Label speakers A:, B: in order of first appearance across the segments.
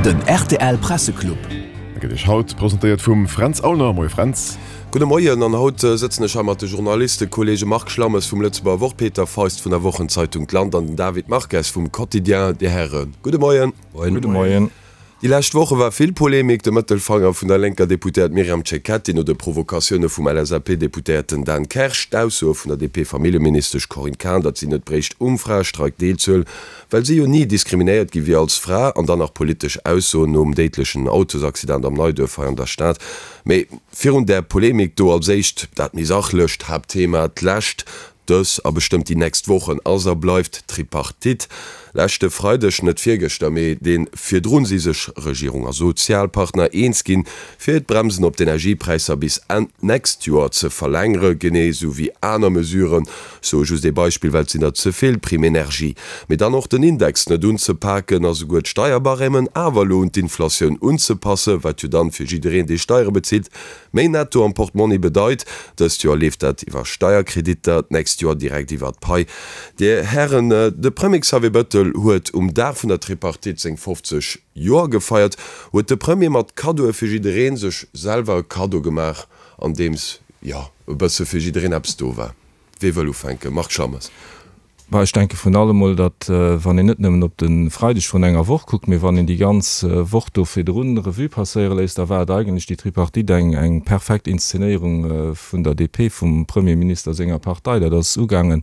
A: Den rtl Presseclub.
B: E gëtt Iech haut presentéiert vum Fränz Aulner. Moie Fränz.
C: Gudde Moien, an haut sëtzen ech hei mat de Journalistekolleege Marc Schlammes vum Lëtzebuerger Wort, Peter Feist vun der Wochenzeitung D'Land an den David Marques vum Quotidien. Dir Häre, gudde Moien.
D: Gudde Moien.
C: Déi lescht Woche war vill Polemik. De Mëttelfanger vun der lénker Deputéiert Myriam Cecchetti no de Provokatioune vum LSAP-Deputéierten Dan Kersch, d'Aussoe vun der DP-Familljeministesch Corinne Cahen, datt si net bréicht um Fraestreik deelzehuelen, well si jo ni diskriminéiert gi wier als Fra, an dann nach politesch Aussoen nom déidlechen Autosaccident am Neiduerf hei an der Stad. Mee virun där Polemik do als éischt dat méi sachlecht Haaptthema, d'lescht Dës a bestëmmt déi nächst Wochen ass a bleift d'Tripartite. Leschte Freideg, net virgëschter, mee dee virdrun, si sech Regierung a Sozialpartner eens ginn, fir d'Bremsen op d'Energiepräisser bis Enn d'nächst Joer ze verlängere, genee sou wéi aner Mesuren, ech soe just ee Beispill, well et sinn der ze vill, Prime énergie, mee dann och den Index net unzepaken a souguer d'Steierbarèmen awer elo un d'Inflatioun unzepassen, wat jo dann fir jiddereen, dee Steiere bezilt, Méi Netto am Portmonni bedeit, dëst Joer leeft dat iwwer Steierkreditter, d'nächst Joer direkt iwwer d'Pai. Dir Hären, de Premier Xavier Bettel huet um Dag vun der Tripartite seng 50 Joer gefeiert. Huet de Premier mat Kaddoe fir jiddereen sech selwer e Kaddo gemaach, andeems, jo, e bësse fir jiddereen eppes do war? Wee wëll ufänken? Marc Schammes.
D: Bah, ech denke vrun allem mol, datt, wann een net nëmmen op de Freideg vrun enger Woch kuckt, mee wann een déi ganz Woch do virdrun Revue passéiere léisst, da war et eigentlech déi Tripartite eng, eng perfekt Inszenéierung vun der DP, vum Premierminister senger Partei. Dat ass ugaangen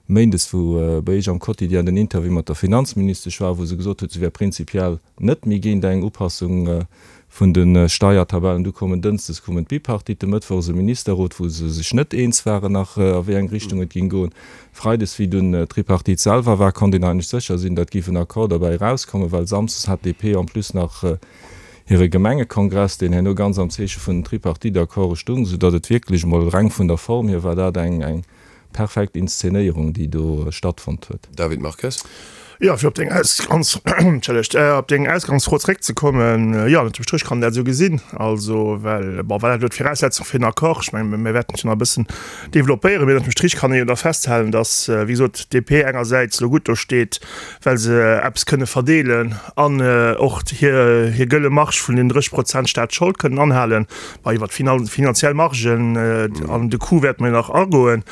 D: méindes, wou bei Iech am Quotidien den Interview mat der Finanzministesch war, wou se gesot huet, se wär prinzipiell net méi géint eng Upassung vun de Steiertabellen. Du koumen dënschdes koumen d'Bipartite, mëttwochs e Ministerrot, wou se sech net eens waren nach, a wéi eng Richtung et géing goen. Freides, wéi dunn d'Tripartite selwer war, konnt een eigentlech sécher sinn, datt géif en Accord derbäi erauskommen, well samsdes hat d'DP en plus nach hire Gemengekongress, deen herno ganz am Zeeche vun den Tripartite-Accorde stung, soudatt et wierklech emol reng vun der Form hier war dat eng Perfekt Inszenéierung déi do stattfonnt huet.
C: David Marques.
E: Jo, fir op deng Ausgangs, entschëllegt, op deng Ausgangsfro zréckzekommen, jo, ënnert dem Stréch kann een dat esou gesinn. Also, well, bon, war dat elo d'Viraussetzung fir en Accord? Ech mengen, mir wäerten et jo nach e bëssen developpéieren, mee ënnert dem Strich kann ee jo da festhalen, datt, wéi gesot, d'DP engersäits elo gutt do steet, well se eppes kënne verdeelen an och hir, hir gëlle Marge vun den 30 Prozent Staatsschold kënnen anhalen. Bah, iwwer d'finanziell Margen an de Coût wäerte mer nach agoen.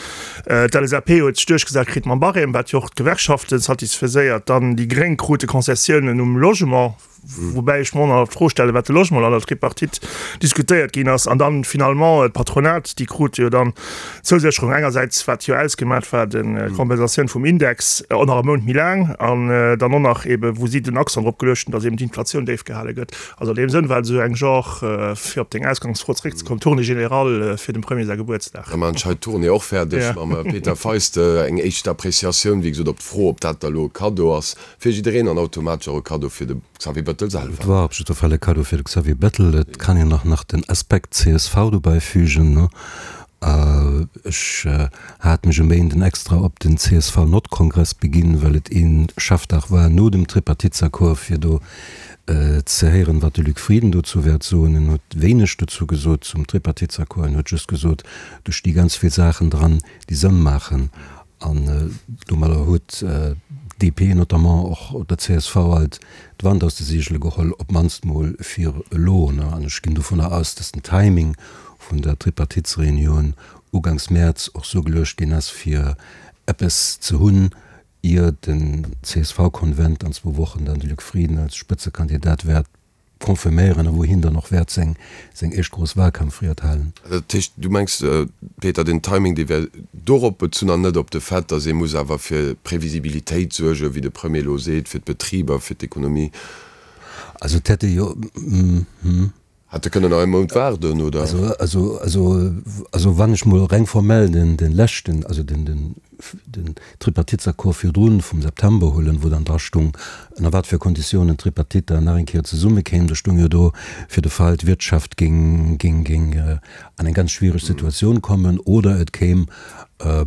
E: D'LSAP huet sech duerchgesat kritt mam Barème, wat jo och d'Gewerkschafte satisfaiséiert. Dann déi Gréng krute Concessiounen um Logement, woubäi ech mer och nach d'Fro stellen, wat de Logement an der Tripartite diskutéiert ginn ass. An dann finalement d'Patronat, déi krute jo dann d'Zousécherung engersäits, wat jo ausgemat war, d'Kompensatioun vum Index och nach e Mount méi laang an dann och nach eebe wou si den Accent drop geluecht hunn, datt eeben d'Inflatioun déif gehale gëtt. Also an deem Sënn war et esou eng Genre, fir op deng Ausgangsfro zeréckzekommen, Tournée générale fir dem Premier säi Gebuertsdag.
C: Da maachen ech hei d'Tournée och fäerdeg mam Peter Feist. Eng éischt Appreciatioun, wéi gesot, op d'Fro, ob dat da elo e Kaddo ass fir jiddereen an automatesch och e Kaddo fir de Xavier Bettel selwer.
F: Et war op jidder Fall e Kaddo fir de Xavier Bettel. Et kann een och nach den Aspekt csv dobäi fügen. Ech hat mech e Méinden extra op den CSV-Nordkongress beginn, well et ee Chefdag war no dem Tripartitesaccord, fir do ze héieren, wat de Luc Frieden dozou wäert soen. En huet wéineg dozou gesot zum Tripartitesaccord. En huet just gesot, do sti ganz vill Saachen dran, déi Sënn maachen. An domadder huet d'DP notamment och der csv alt d'Wand aus de Seegele geholl, op d'mannst mol fir elo. An ech ginn dovunner aus, datt den Timing vun der Tripartitesreunioun ugangs Mäerz och sou geluecht ginn ass, fir eppes ze hunn, ier den CSV-Konvent an zwou Wochen dann de Luc Frieden als Spëtzekandidat wäert confirméieren a wou hien dann och wäert seng seng éischt grouss Wahlkampfried halen.
C: Dat heescht, du mengs, Peter, den Timing, dee wär dorop bezunn an net op de Fait, datt ee muss awer fir Previsibilitéit suergen, wéi de Premier elo seet, fir d'Betriber, fir d'Ekonomie?
F: Also et hätt ee jo.
C: Hätte kënnen nach ee Mount waarden, oder?
F: Also, also, also, also wann ech mol reng formell den, den leschten, also den, den, den Tripartitesaccord virdrun vum September huelen, wou dann dra stung, ënner wat fir Konditiounen d'Tripartite dann nach eng Kéier zesummekéim, do stung jo do, fir de Fall d'Wirtschaft géing, géing, géing an eng ganz schwiereg Situatioun kommen oder et kéim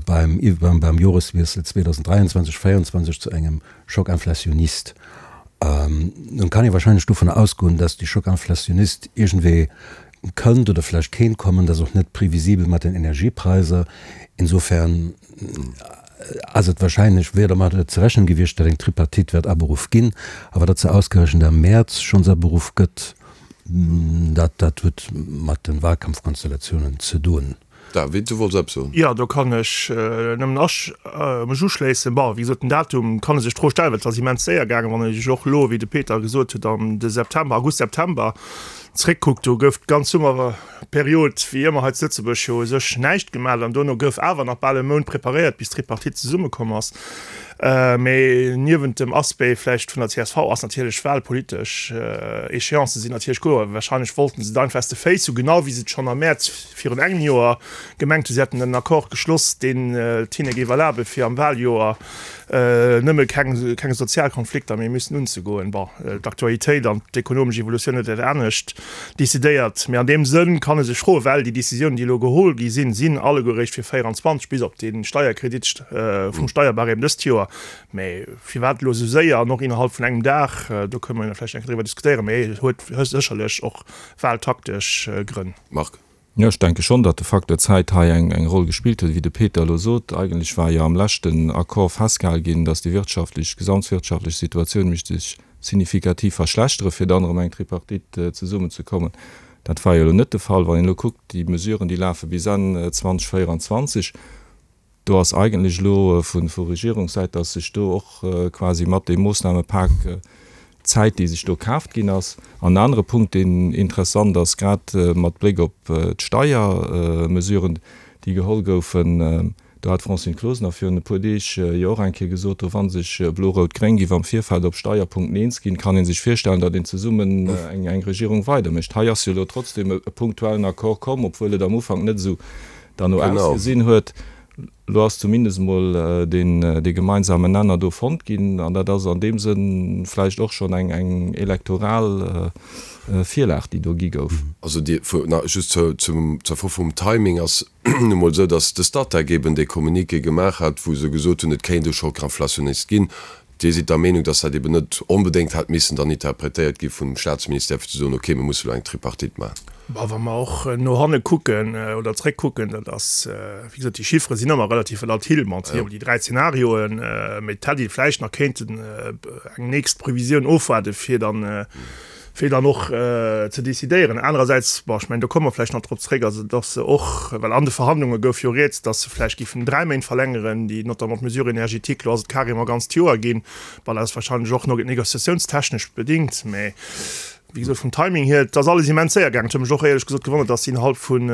F: beim, beim, beim Joreswiessel 2023, 2024 zu engem Choc inflationniste. Nun kann ee wahrscheinlech dovunner ausgoen, dass dee Choc inflationniste iergendwéi kënnt oder vläicht kéint kommen. Dat ass och net previsibel mat den Energiepreiser. Insofern. ass et wahrscheinlech, wier dermat ze rechnen gewiescht, datt eng Tripartite wäert aberuff ginn. Awer datt se ausgerechent am Mäerz schonns aberuff gëtt, dat, dat huet mat de Wahlkampfkonstellatiounen ze doen.
C: David, du wollts eppes soen?
E: Jo, do kann ech nëmmen mech uschléissen. Bon, wéi gesot, den Datum kann ee sech d'Fro stellen, well et ass immens séier gaangen. Wann ee sech och elo, wéi de Peter gesot huet, an de September, August, September zréckkuckt, do gouf d'ganz Summerperiod, wéi ëmmer hei zu Lëtzebuerg, jo u sech näischt gemaach an dono gouf awer nach bal e Mount preparéiert, bis d'Tripartite zesummekomm ass. Mee niewent dem Aspect vläicht vun der csv ass natierlech wahlpolitesch Échéancë sinn natierlech kloer. Wahrscheinlech wollten se et einfach aus de Féiss hu, genau wéi se et schonn am Mäerz virun engem Joer gemengt hunn. Si hätten en Accord geschloss, deen et hinne géif erlabe fir am Wahljoer nëmme keng keng Sozialkonflikter méi müssen unzegoen. Bon, d'Aktualitéit an d'ekonomesch Evolutioun huet dat anescht decidéiert. Mee an deem Sënn kann e sech froen, well déi Décisiounen, déi elo geholl gi sinn, sinn alleguer eréischt fir 24, bis op dee Steierkredit vum Steierbarème dëst Joer. Mee firwat elo esou séier an och innerhalb vun engem Dag, do kënne mer jo vläicht eng Kéier driwwer diskutéieren, mee et huet sécherlech och wahltaktesch Grënn.
C: Marc.
D: Jo, ech denke schonn, datt de Facteur Zäit hei eng Roll gespillt huet. Wéi de Peter elo sot, eigentlech war jo am leschten Accord festgehale ginn, datt déi wirtschaftlech, gesamtwirtschaftlech Situatioun misst sech signifikativ verschlechtere fir dann erëm eng Tripartite zesummenzekommen. Dat war jo elo net de Fall. Wann een elo kuckt, déi Mesuren, déi lafe bis Enn 2024, Do ass eigentlech elo vu Regierungssäit, dass sech do och quasi mat deem Moossnamepak d'Zäit, déi sech do kaaft ginn ass. An en anere Punkt, deen interessant ass, grad mat Bléck op d'Steiermesuren, déi geholl goufen, do hat d'Francine Closener virun e puer Deeg jo och eng Kéier gesot, do wa sech Blo-Rout-Gréng géif am Virfeld op Steierpunkten eens ginn, kann ee sech virstellen, datt een zesummen eng Regierung weidermécht. Hei ass jo elo trotzdem e punktuellen Accord komm, obwuel et am Ufank net esou derno ausgesinn huet. Elo ass zumindest emol dee gemeinsamen Nenner do fonnt ginn, an dat ass an deem Sënn vläicht och schonn eng elektoral Virlag, déi do gi gouf.
C: Also just zur Fro vum Timing ass nu mol esou, datt de Statec eben dee Communiqué gemaach hat, wou se gesot hunn, et kéint e Choc inflationniste ginn. Dir sidd der Meenung, dass dat eben net onbedéngt hätt missen dann interpretéiert gi vum Statsministère, fir ze soen, okay, mir musse elo eng Tripartite maachen?
E: Bon, wa mer och no hanne kucken oder zréckkucken, dat ass, wéi gesot, déi Chiffere sinn ëmmer relativ volatil. Bon, et sinn ëmmer déi 3 Zenarioen, mee et hätt ee vläicht nach kéinten eng nächst Previsioun ofwaarde fir dann, fir dann och ze decidéieren. Anerersäits, bon, ech mengen, do komme mer vläicht nach drop zréck, also dass se och, well an de Verhandlunge gouf jo rieds, dass se vläicht géifen 3 Méint verlängeren, déi notamment d'Mesure énergétique, elo ass et carrément ganzt Joer ginn. Bon, dat ass wahrscheinlech och négociatiounstechnesch bedingt, mä wéi gesot, vum Timing hier, et ass alles immens séier gaangen. Et huet mech och éierlech gesot gewonnert, dass si innerhalb vun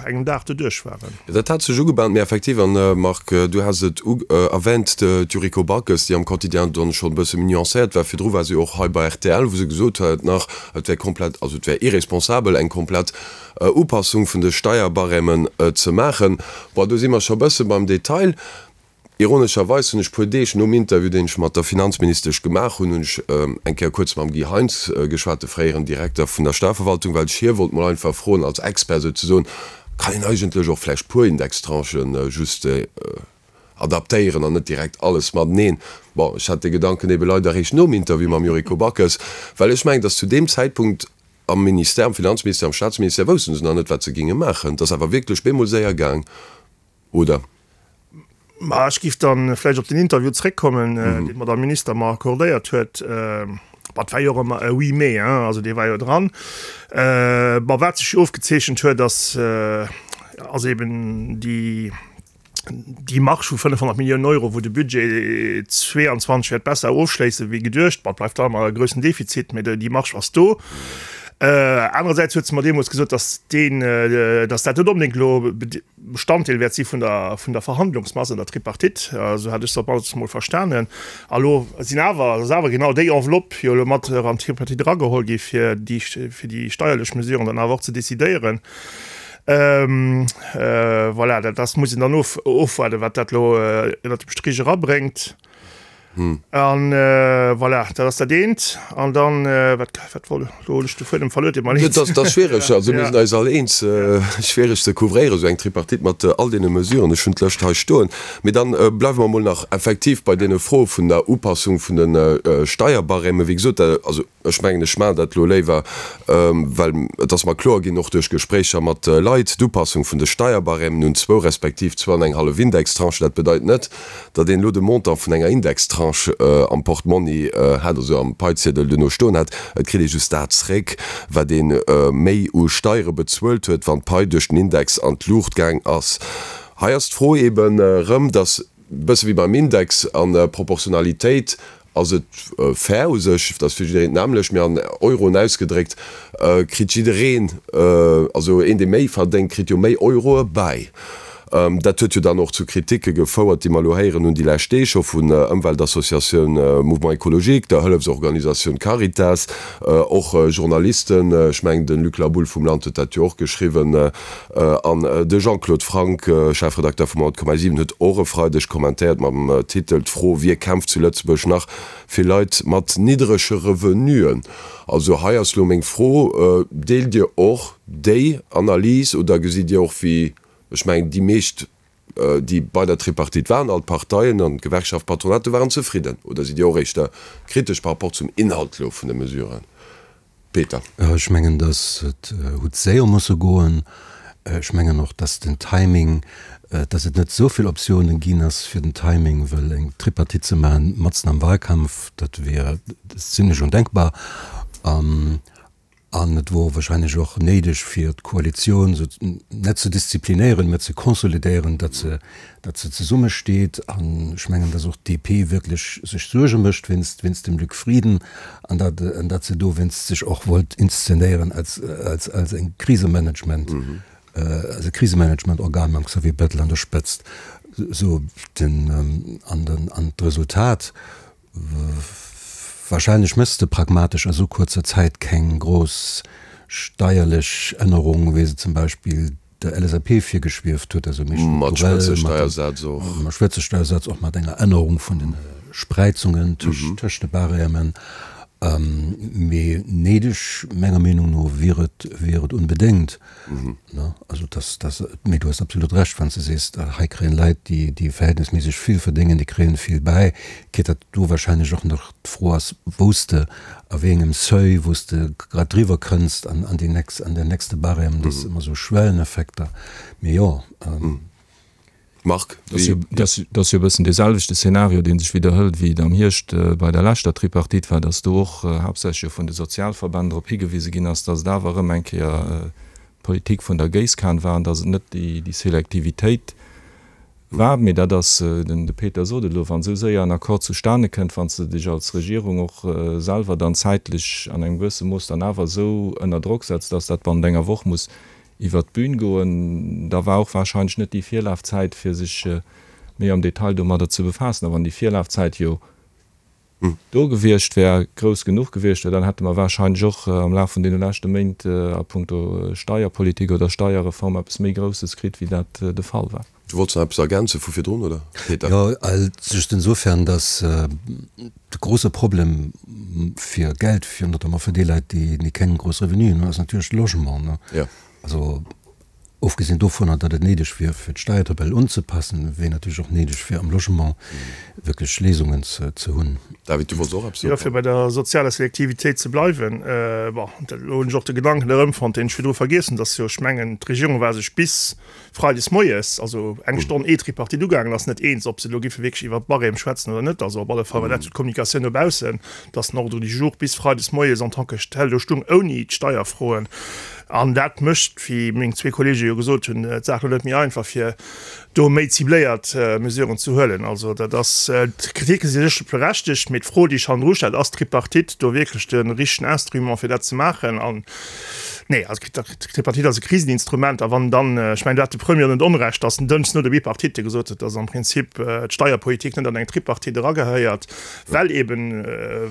E: engem Dag doduerch waren.
C: Dat hat sech ugebahnt, mee effektiv, an Marc, du has et erwähnt, d'Yuriko Backes, déi am Quotidien dann schonn e bësse méi nuancéiert war, virdru war se jo och hei bei rtl, wou se gesot huet nach, et wär komplett, also et wär irresponsabel, eng komplett Upassung vun de Steierbarèmen ze maachen. Bon, do si mer scho e bësse beim Detail. Ironescherweis hunn ech puer Deeg nom Interview, deen ech mat der Finanzministesch gemaach hunn, hunn ech eng Kéier kuerz mam Guy Heintz geschwat, de fréieren Direkter vun der Steierverwaltung, well ech hie wollt mol einfach froen, als Expert souzesoen, kann een eigentlech och vläicht puer Indextranchen just adaptéieren an net direkt alles mateneen? Bon, ech hat dee Gedanken ebe leider eréischt nom Interview mam Yuriko Backes, well ech mengen, datt zu deem Zäitpunkt am Ministère, am Finanzministère, am Staatsministère wousste se nach net, wat se géinge maachen. Et ass awer wierklech bemol séier gaang. Oder?
E: Ma ech géif dann vläicht op den Interview zréckkommen, deen d'Madame Minister mer accordéiert huet. Bon, et war jo och ëmmer e Oui, mais, hein, also dee war jo dran. Bon, wat sech jo ofgezeechent huet, ass, ass eben déi, déi Marge vu 500 Milliounen Euro, wou de Budget 22 wäert besser ofschléissen wéi geduecht. Bon, et bleift da ëmmer e groussen Defizit, mä déi Marge ass do. Anerersäits huet se mer deemools gesot, dass deen, dass dat net onbedéngt elo Bestanddeel wäert si vun der, vun der Verhandlungsmass an der Tripartite, esou hat ech se op mannst emol verstanen. A lo sinn awer, ass awer genau déi Enveloppe jo elo mat an d'Tripartite erageholl gi fir déi, fir déi steierlech Mesuren dann awer och ze decidéieren. Voilà, dat ass, muss een dann of, ofwaarden, wat dat elo ënnert dem Strich erabréngt. An voilà, dat ass dat eent. An dann, wat, wat wollt, elo hunn ech de Fuedem verluer, deet mer leed.
C: Dat ass schwiereg, also mir sinn eis all eens, schwiereg ze couvréieren, esou eng Tripartite mat all deene Mesuren. Ech hunn d'Lëscht hei stoen. Mee dann bleiwe mer emol nach effektiv bei deene Froe vun der Upassung vun de Steierbarèmen. Wéi gesot, also Ech mengen, ech maachen dat elo léiwer, well et ass mer kloer ginn, och duerch Gespréicher mat Leit, d'Upassung vun de Steierbarèmen un zwou respektiv zwou an eng hallef Indextranchen, dat bedeit net, datt een elo de Montant vun enger Indextranche am Portmonni hätt, also am Paiziedel duerno stoen hätt. Et kritt ee just dat zréck, wat ee méi u Steiere bezuelt huet, wann d'Pai duerch den Index an d'Luucht gaang ass. Hei ass d'Fro eeben erëm, datt, e bësse wéi beim Index an der Proportionalitéit, Ass et fair u sech, dat ass fir jiddereen d'nämmlecht, mee an Euroen ausgedréckt kritt jiddereen, also een dee méi verdéngt, kritt jo méi Euroe bäi. Dat huet jo dann och zu Kriticke gefouert, déi mer elo héieren hunn déi lescht Deeg scho vun Ëmweltassociatioun Mouvement Ecologique, der Hëllefsorganisatioun Caritas, och Journalisten, ech mengen de Luc Laboulle vum Land huet dat jo och geschriwwen, An de Jean-Claude Franck, Chefredakter vum 100,7 huet och e Freideg kommentéiert mam Titel D'Fro, Wie kämpft zu Lëtzebuerg nach fir Leit mat niddrege Revenuen? Also hei ass lo meng Fro, Deelt Dir och déi Analys oder gesitt Dir och wéi, ech mengen déi meescht déi bei der Tripartite waren, all d'Parteien an d'Gewerkschaft, d'Patronat, do waren zefridden? Oder sidd Dir och éischter kritesch par rapport zum Inhalt lo vun de Mesuren? Peter.
F: Ech mengen, datt et huet séier musse goen. Ech mengen och, datt den Timing, datt et net esou vill Optiounen ginn ass fir den Timing, well eng Tripartite ze maachen matzen am Wahlkampf, dat wier zimlech ondenkbar. An et wor wahrscheinlech och néideg fir d'Koalitioun esou net ze disziplinéieren, mä ze konsolidéieren, datt se, datt se zesummesteet. An ech mengen, datt och d'DP wierklech sech Suerge mécht wéinst, wéinst dem Luc Frieden an datt, an datt se dowéinst sech och wollt inszenéieren als, als, als eng Krisemanagement, als e Krisemanagementorgan mam Xavier Bettel an der Spëtzt. Esou den, an den, an d'Resultat, Wahrscheinlech méchs de pragmatesch a sou kuerzer Zäit keng grouss steierlech Ännerung, wéi se zum Beispill der LSAP virgeschwieft huet, also méi
C: Mat
F: strukturell, mat Spëtzesteiersaz och, mat enger Ännerung vun de Spreizungen tëscht de Barèmen. Mee néideg, menger Meenung no, wier et, wier et unbedéngt. Also dass, dass, mee du hues absolut Recht, wann s de sees, hei kréien Leit, déi, déi verhältnisméisseg vill verdéngen, déi kréien vill bäi, quitte datt do wahrscheinlech och nach d'Fro ass, wou s de, a wéi engem Seuil, wou s de grad driwwer kënns an, an déi nächst, an den nächste Barème, dat ass ëmmer esou Schwelleneffekter. Mee jo.
C: Marc,
D: wéi. Dat ass jo e bëssen dee selwechte Szenario, dee sech widderhëlt, wéi et am Hierscht bei der leschter Tripartite war, datt do och haaptsächlech jo vun de Sozialverbänn drop higewise ginn ass, datt et awer erëm eng Kéier d'Politik vun der Géisskan war an datt et net déi Selektivitéit war. Mee dat ass, de Peter sot et elo, wann esou séier en Accord zustane kënnt, wann s de dech als Regierung och selwer dann zäitlech an engem gewësse Mooss dann awer esou ënner Drock setz, datt dat bannent enger Woch muss iwwert d'Bün goen. Da war och wahrscheinlech net déi Virlafzäit, fir sech méi am Detail domadder ze befaassen. A wann déi Virlafzäit jo do gewiescht wär, grouss genuch gewiescht wär, dann hätte mer wahrscheinlech och am Laf vun deene leschte Méint a puncto Steierpolitik oder Steierreform eppes méi Grousses kritt, wéi dat de Fall war.
C: Du wollts nach eppes ergänze vu virdrun, oder,
F: Peter? Jo, just insofern, dass de grouse Problem fir Geld, fir notamment fir déi Leit, déi keng grouss Revenuen hunn, ass natierlech de Logement.
C: Jo.
F: Also ofgesinn dovunner, datt et néideg wier, fir d'Steiertabell unzepassen, wier natierlech och néideg, fir am Logement wierklech Léisungen ze hunn.
C: David, du wollts och eppes soen?
E: Jo, fir bei der sozialer Selektivitéit ze bleiwen, bon, elo hunn ech och de Gedanken erëmfonnt, deen ech virdru vergiess hunn, dass jo, ech mengen, d'Regierung war sech bis Freides moies, also eng Stonn ee d'Tripartite ugaangen ass, net eens, ob se elo giffe wierklech iwwert d'Barème schwätzen oder net. Also op alle Fall war dat sou d'Kommunikatioun no baussen, dass den Ordre du jour bis freides moies en tant que tel do stung, ouni d'Steierfroen. An dat mécht, wéi meng zwee Kollege jo gesot hunn, d'Saach elo net méi einfach, fir do méi cibléiert Mesuren ze huelen. Also dat ass, d'Kriticke si sécher berechtegt, mee d'Fro, déi sech hannendru stellt, Ass d'Tripartite do wierklech de richtegen Instrument, fir dat ze maachen? An. Nee, also d'Tripartite ass e Kriseninstrument a wann dann, ech mengen do hat de Premier net Onrecht, datt en Dënschdes no der Bipartite gesot huet, datt am Prinzip d'Steierpolitik net an eng Tripartite eragehéiert, well eben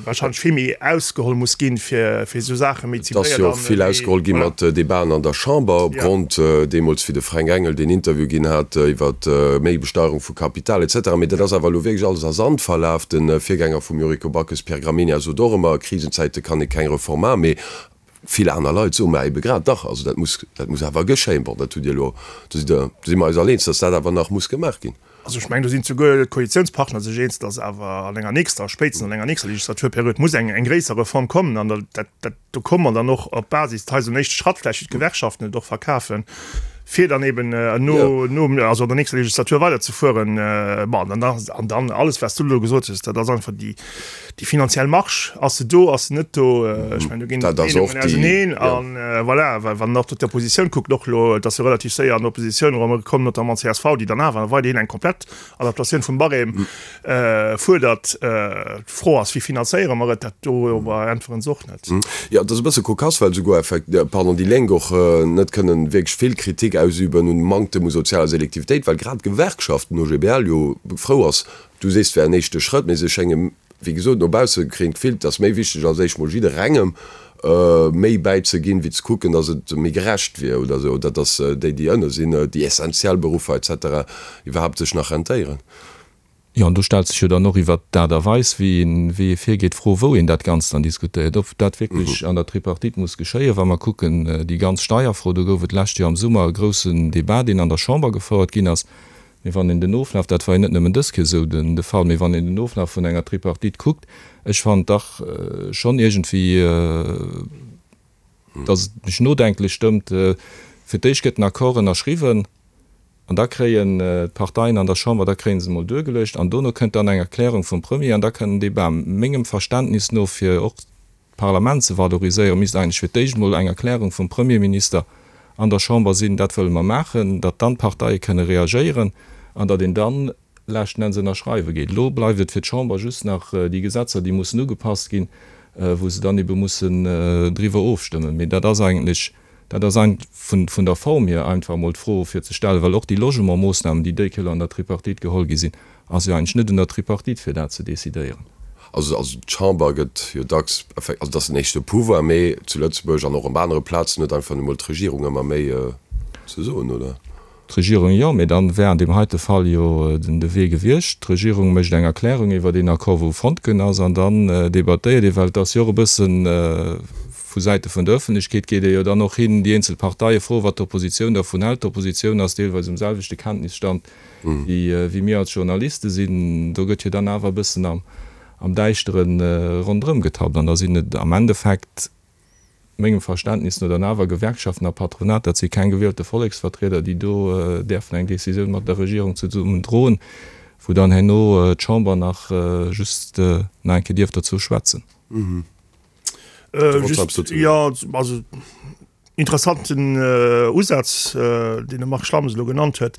E: wahrscheinlech vill méi ausgeholl muss ginn, fir esou Saache méi
C: Et ass
E: zibléiert
C: jo
E: an
C: och vill
E: méi,
C: ausgeholl gi
E: voilà.
C: mat Debaten an der Chamber opgrond deemools wéi de Fränk Engel deen Interview ginn hat iwwer méi Besteierung vu Kapital et cetera. Mee dat ass awer elo wierklech alles a Sand verlaf. De Virgänger vum Yuriko Backes, Pierre Gramegna, sot och ëmmer, a Krisenzäite kann ee keng Reform maachen. Mee vill aner Leit soen, mä ebe grad dach, also dat muss, dat muss awer geschéien. Bon, dat hutt Dir elo, do sidd Der, do si mer eis all eens, datt dat awer nach muss gemaach ginn.
E: Also ech mengen, do sinn souguer d'Koalitiounspartner sech eens, datt awer an enger nächster, spéitstens an enger nächster Legislaturperiod muss eng, eng gréisser Reform kommen. An dat, dat, do komme mer dann och op Basis, hei esou en éischte Schratt vläicht, wéi d'Gewerkschaften et och verkafen, fir dann eben no, no, also an der nächster Legislatur weiderzefueren. Bon, an dann, an dann alles, wat s du elo gesot hues, dat ass einfach déi, Déi finanziell Marge, ass se do, ass se net do? Ech mengen, do ginn d'Meenungen auseneen. An voilà, well wann een och d'Oppositioun kuckt, och elo, et ass jo relativ séier an d'Oppositioun erëm komm, notamment csv, déi dann awer weiderhin eng komplett Adaptatioun vum Barème fuerdert. D'Fro ass, wéi finanzéiere mer et? Dat do äntweren se och net.
C: Jo, et ass e bësse kokass, well souguer effekt, pardon, déi Lénk och net kënnen wierklech vill Kritik ausüben un Manktem u sozialer Selektivitéit, well grad d'Gewerkschaft, den OGBL, jo frou ass, Du sees, et wär en éischte Schrëtt, mee se schénge wéi gesot no bausse kréien d'Gefill, et ass méi wichteg als éischt mol jidderengem méi bäizeginn, wéi ze kucken, datt et méi gerecht wier oder esou, oder datt déi, déi ënne sinn, déi essentiell Beruffer et cetera iwwerhaapt sech nach rentéieren.
D: Jo, an do stellt sech jo dann och iwwert d'Aart a Weis, wéi een, wéi ee virgeet, d'Fro, wou een dat Ganzt dann diskutéiert, ob dat wierklech an der Tripartite muss geschéien. Wa mer kucken, déi ganz Steierfro, do gouf et d'lescht Joer am Summer e groussen Débat, deen an der Chamber gefouert ginn ass, Mee wann een den Oflaf, dat war jo net nëmmen dës Kéier esou de Fall, mee wann een den Oflaf vun enger Tripartite kuckt, ech fannen dach schonn iergendwéi, datt et mech nodenklech stëmmt, Fir d'éischt gëtt den Accord ënnerschriwwen an da kréien d'Parteien an der Chamber, da kréie se emol duergeluecht an dono kënnt dann eng Erklärung vum Premier an da kënnt en Débat. Mengem Verständnis no, fir och d'Parlament ze valoriséieren, misst eigentlech fir d'éischt emol eng Erklärung vum Premierminister an der Chamber sinn, dat wëlle mer maachen, datt dann d'Parteie kënne reagéieren an datt een dann leschten Enns ënnerschreiwe geet. Elo bleift et fir d'Chamber just nach déi Gesetzer, déi mussen ugepasst ginn, wou se dann ebe mussen driwwer ofstëmmen. Mee dat ass eigentlech, dat ass vun der Form hier einfach emol d'Fro fir ze stellen, well och déi Logementmoossnamen, déi déi Kéier an der Tripartite geholl gi sinn, Ass jo eigentlech net un der Tripartite fir dat ze decidéieren.
C: Also also d'Chamber gëtt jo dacks, also et ass den éischte Pouvoir, mee zu Lëtzebuerg an och op anere Plazen huet einfach nu mol d'Regierung ëmmer méi ze soen, oder?
D: D'Regierung jo, mee dann wär an deem heite Fall jo den de Wee gewiescht, d'Regierung mécht eng Erklärung iwwert een Accord wou fonnt ginn ass an dann debattéiert ee, well et ass jo och e bëssen vu Säite vun der Ëffentlechkeet geet ee jo dann och hin déi eenzel Parteie froen, wat d'Oppositioun dervun hält. D'Oppositioun ass deelweis um selwechte Kenntnisstand wéi mir als Journaliste sinn, do gëtt jo dann awer e bëssen am Däischtere ronderëm getappt. An da sinn et am Endeffekt, mengem Verständnis no, dann awer Gewerkschaften a Patronat, dat si keng gewielte Volleksvertrieder, déi do däerfen eng Décisioun mat der Regierung zesummen droen, wou dann herno d'Chamber nach just nach eng Kéier dierf dozou schwätzen.
E: Just, jo, also. Interessanten Usaz, deen de Marc Schlammes elo genannt huet.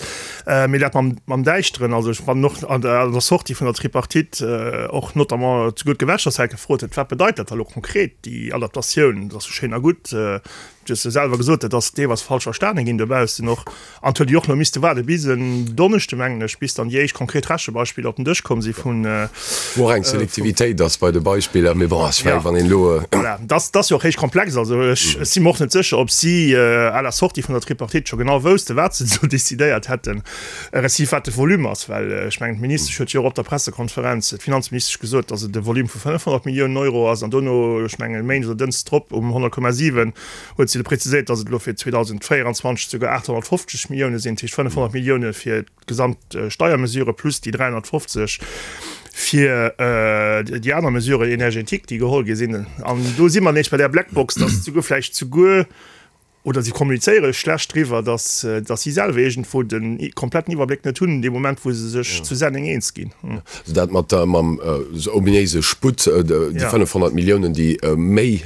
E: Mee dat mam Däischteren, also ech fannen och an der Sortie vun der Tripartite och notamment souguer d'Gewerkschaftssäit gefrot huet, wat bedeit dat da elo konkret, déi Adaptatioun? Dat ass jo schéin a gutt, du hues jo selwer gesot, dat ass deelweis falsch verstane ginn dobaussen och. An et huet jo och elo misste waarde bis en Donneschde, mengen ech, bis dann déi éischt konkret Rechebeispiller op den Dësch komm si vun.
C: Wou och eng Selektivitéit ass bei de Beispiller, mee bon, ech mengen, wann een elo.
E: Voilà, dat ass jo och héich komplex. Also ech si mer och net sécher, ob si à la sortie vun der Tripartite scho genau woussten, wat se do decidéiert hätten, respektiv wat de Volume ass. Well ech mengen, d'Ministesch huet jo och op der Pressekonferenz, d'Finanzministesch, gesot, datt et e Volume vu 500 Milliounen Euro ass. An dono, ech mengen, e Méindeg oder Dënschdes drop um 100,7, huet se preziséiert, datt et elo fir 2024 souguer 850 Millioune sinn, dat heescht 500 Millioune fir d'gesamt Steiermesure plus déi 350 fir déi aner Mesuren énergétiques, déi geholl gi sinn. An do si mer nees bei där Blackbox, datt souguer vläicht souguer, oder si kommunizéiere schlecht driwwer, datt datt si selwer iergendwou de kompletten Iwwerbléck net hunn, dee Moment wou se sech zu Senneng eens ginn.
C: Also dat mat der, mam ominéise Sputt, déi 500 Milliounen, déi méi.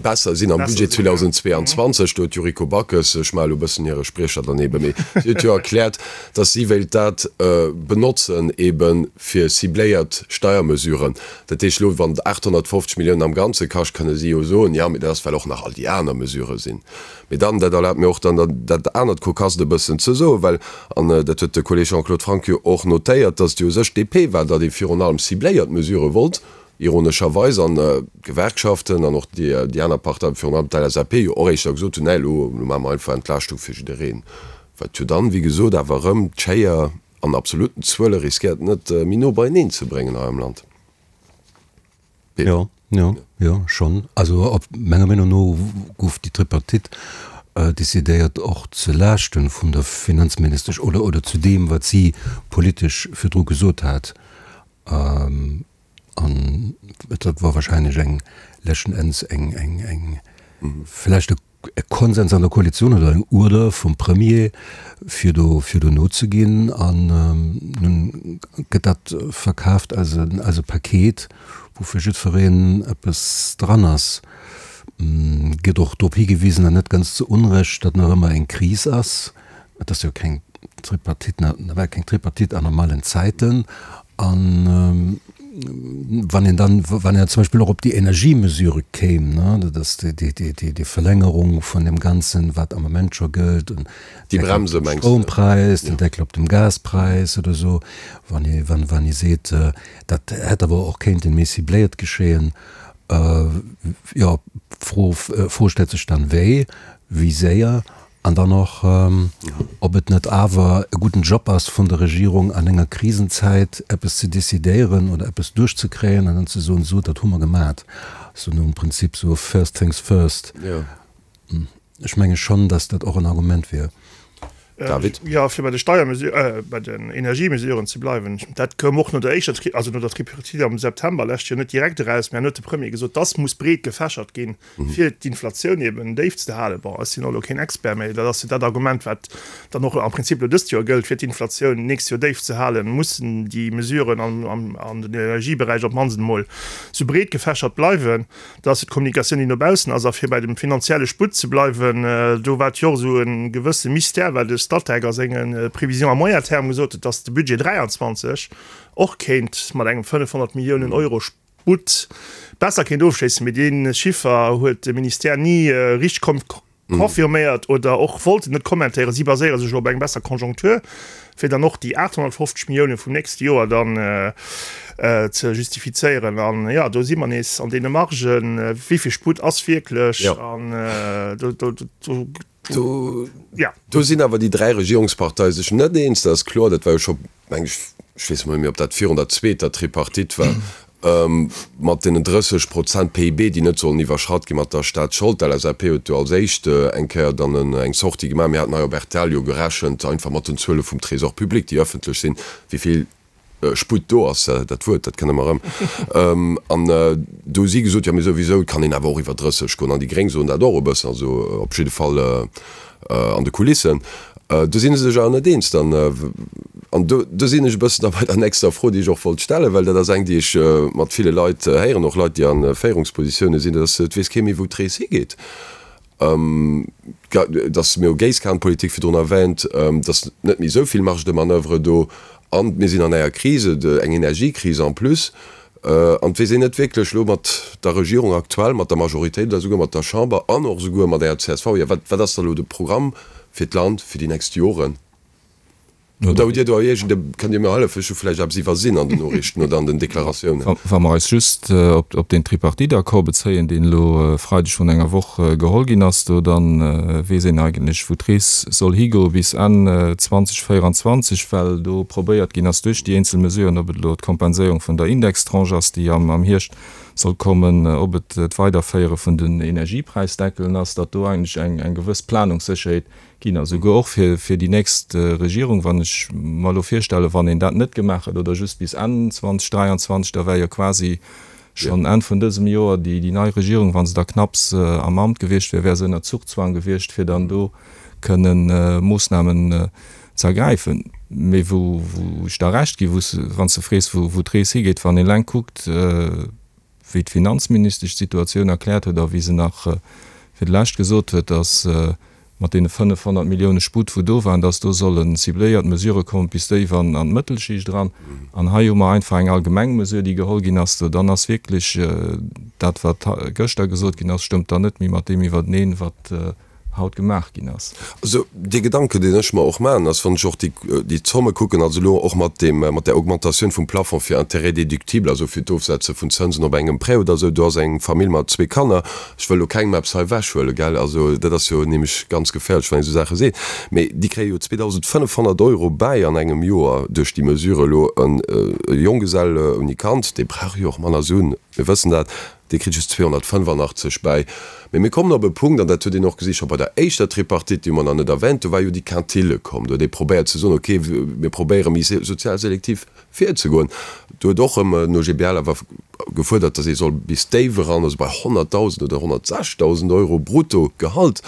C: Besser sinn am Budget 2022. Do huet d'Yuriko Backes, ech maache elo e bëssen hire Spriecher dann eebe, mee si huet jo erkläert, datt si wéilt dat benotzen eebe fir cibléiert Steiermesuren. Dat heescht elo, wann et 850 Milliounen am Ganze kascht, kënne si jo soen, jo, mee dat ass well och nach all déi aner Mesurë sinn. Mee dann, dat erlaabt mir och dann dat anert Kokasst e bëssen ze soen, well, an dat huet de Kolleg Jean-Claude Franck jo och notéiert, datt et jo u sech d'DP war, datt ee virun allem cibléiert Mesurë wollt, ironescherweis, an d'Gewerkschaften an och déi aner Parteien, virun allem d'LSAP, jo och éischter gesot hunn, nee, elo maache mer einfach Entlaaschtung fir jiddereen. Wat jo dann, wéi gesot, awer erëm d'Schéier an absolutten Zuele riskéiert net méi no beieneen ze bréngen hei am Land.
F: Jo, jo, jo, schonn. Also op menger Meenung no gouf déi Tripartite decidéiert och ze Laaschte vun der Finanzministesch oder, oder zu deem, wat si politesch virdru gesot hat. An et war wahrscheinlech eng, leschten Enns eng, eng, eng vläicht e e Konsens an der Koalitioun oder eng Uerder vum Premier, fir do, fir do nozeginn. An nun gëtt dat verkaaft als e, als e Paket, wou fir jiddwereen eppes dran ass. Gëtt och drop higewisen, an net ganz zu Unrecht, datt nach ëmmer eng Kris ass. Et ass jo keng Tripartite, nawell keng Tripartite an normalen Zäiten. An wann een dann, wann een zum Beispill och op déi Energiemesure kéim, ne, dat ass déi, déi, déi, déi, déi Verlängerung vun deem Ganzen, wat am Moment scho gëllt, den
C: Déi Deckel op
F: Bremse, dem mengst de? Stroumpräis, den Deckel op dem Gaspräis oder esou, wann ee, wann, wann ee seet, dat hätt awer och kéinten méi cibléiert geschéien, jo, d'Fro, d'Fro stellt sech dann, wéi, wéi séier An dann och, ob et net awer e gudden Job ass vun der Regierung, an enger Krisenzäit eppes ze decidéieren oder eppes duerchzekréien an dann ze soen, Sou, dat hu mer gemat. Sou nom Prinzip sou first things first. Ech menge schonn, datt dat och en Argument wier.
C: David.
E: Jo, fir bei de Steiermesu-, bei den Energiemesuren ze bleiwen, dat koum och no der éischter, also no der Tripartite am September lescht Joer net direkt eraus, mä an huet de Premier gesot, dass muss breet gefächert ginn, fir d'Inflatioun eben déif ze halen. Bon, ech sinn och elo keen Expert, mä dat ass jo dat Argument, wat dann och am Prinzip elo dëst Joer gëllt, fir d'Inflatioun d'nächst Joer déif ze halen, mussen déi Mesuren an den Energieberäich op d'mannst emol sou breet gefächert bleiwen. Dat ass jo d'Kommunikatioun, déi no baussen ass. A fir bei dem finanzielle Sputt ze bleiwen, do war et jo och esou e gewësse Mystère, well de Statec a senge Prévisions à moyen terme gesot huet, dass de Budget 23 och kéint mat engem 500 Milliounen Euro Sputt besser kéint ofschléissen, mee dee Chiffer huet de Ministère ni richteg confirméiert oder och wollt en net kommentéieren. Si baséiere sech elo op eng besser Conjoncture, fir dann och déi 850 Millioune vum nächste Joer dann ze justifizéieren. An jo, do si mer nees an deene Margen, wéi vill Sputt ass wierklech an do, do, do.
C: Do sinn awer déi dräi Regierungsparteie sech net eens, dat ass kloer. Dat war jo scho, meng ech, ech weess emol net méi, ob dat virun der zweeter Tripartite war, mat deenen 30 Prozent PIB, déi net sollen iwwerschratt gi mat der Staatsschold. D'LSAP huet do als éischt eng Kéier dann eng Sortie gemaach. Mir haten hei op rtl jo gerechent, einfach mat den Zuele vum Trésor public, déi ëffentlech sinn, wéi vill Sputt do ass, dat Wuert, dat kënne mer erëm. An do hu si gesot, jo mee souwisou, et kann een awer och iwwer 30 goen. An déi Gréng soen dat och e bëssen, also op jidde Fall an de Kulissen. Do si se sech awer net eens dann. An do, do sinn ech e bëssen da bei der nächster Fro, déi ech och wollt stellen, well dat ass eng, déi ech mat ville Leit héieren, och Leit, déi a Féierungspositioune sinn, dat ass, et weess kee méi, wou d'Rees higeet. Dass, mir hu Géisskanpolitik virdrun erwähnt, dass net méi esou vill Marge de manoeuvre do an mir sinn an enger Krise, eng Energiekris en plus, an et weess een net wierklech elo mat der Regierung aktuell, mat der Majoritéit oder souguer mat der Chamber an och souguer mat enger csv, jo wat ass da elo de Programm fir d'Land fir déi nächst Joren? Oder hutt Dir do iergend e, kënnt Dir mir hëllefen, ech hu vläicht eppes iwwersinn an den Noriichten oder an den Deklaratiounen.
D: Wa mer eis just op deen Tripartite-Accord bezéien, deen elo e Freideg vrun enger Woch geholl ginn ass do, da weess een eigentlech, wou d'Rees soll higoe bis Enn 2024, well do probéiert ginn ass duerch déi eenzel Mesuren, ob et elo d'Kompenséierung vun der Indextranche ass, déi am Hierscht soll kommen, ob et d'Weiderféiere vun den Energiepräisdeckelen ass, datt do eigentlech eng gewëss Planungssécherheet ginn a souguer och fir fir déi nächst Regierung, wann ech mer elo virstellen, wann een dat net gemaach hätt oder just bis Enn 2023, da wär jo quasi schonn Enn vun dësem Joer déi déi nei Regierung, wa se da knapps am Amt gewiescht wär, wär se ënner Zugzwang gewiescht, fir dann do kënnen Moossnamen ze ergräifen. Mee wou wou ech der Recht gi, wou s, wann s de frees, wou wou d'Rees higeet, wann een eleng kuckt. wéi d'Finanzministesch d'Situatioun erkläert huet a wéi se nach fir d'lescht gesot huet, datt mat deene 500 Millioune Sputt, wou do waren, datt do solle cibléiert Mesurë kommen bis déif an d'Mëttelschicht eran. An hei hu mer einfach eng allgemeng Mesure, déi geholl ginn ass. Dann ass wierklech dat, wat gëschter gesot ginn ass, stëmmt dann net méi mat deem iwwerteneen, wat haut gemaach ginn ass.
C: Also dee Gedanken, deen ech mer och maachen, ass, wann ech och déi, déi Zomme kucken, also elo och mat deem, mat där Augmentatioun vum Plafond fir Intérêts déductibles, also fir d'Ofsetze vun Zënsen op engem Prêt oder esou, do ass eng Famill mat zwee Kanner, ech wëll elo kengem eppes hei ewechhuelen, gell, also dat ass jo nämlech ganz geféierlech, wann een esou Saache seet, mee déi kréie jo 2.500 Euro bäi an engem Joer duerch déi Mesure elo. E Jonggesell ouni Kand, dee brauch jo och manner Suen, mir wëssen dat, Dee kritt just 285 bäi. Mee mir kommen op e Punkt, an dat huet een och gesi scho bei der éischter Tripartite, déi hu mer nach net erwänt, do war jo déi Quintile komm. Do huet ee probéiert ze soen, okay, mir probéiere méi sozial selektiv virzegoen. Do huet och erëm den OGBL awer gefuerdert, datt ee soll bis déif eran, also bei 100.000 oder 106.000 Euro Bruttogehalt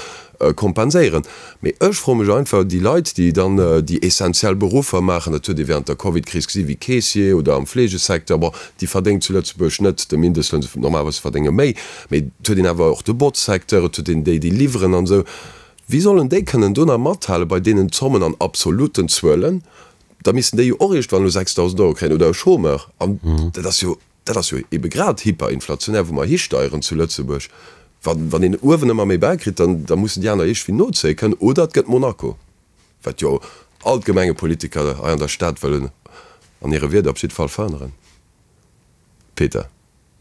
C: kompenséieren. Mee ech froe mech einfach, déi Leit, déi dann déi essentiell Beruffer maachen, dat huet ee während der Covidkris gesi wéi Caissier oder am Fleegesecteur, bon, déi verdéngen zu Lëtzebuerg net de Mindestloun, normalerweis verdénge méi, mee et huet een awer och de Botzsecteur, et huet een déi, déi liwweren an esou. Wéi sollen déi kënnen do nach mathale bei deenen Zommen an absoluten Zuelen? Da missten déi jo och iergendwann elo 6.000 Euro kréien oder e Chômeur. An dat ass jo Dat ass jo ebe grad hyperinflationär, wou mer histeieren zu Lëtzebuerg. Wann, wann een uewen ëmmer méi bäikritt, dann, da mussen déi aner iergendwéi nozéie kënnen oder et gëtt Monaco, wat jo all d'Gemengepolitiker hei an der Stad wëllen an hire Wierder op jidde Fall verhënneren. Peter.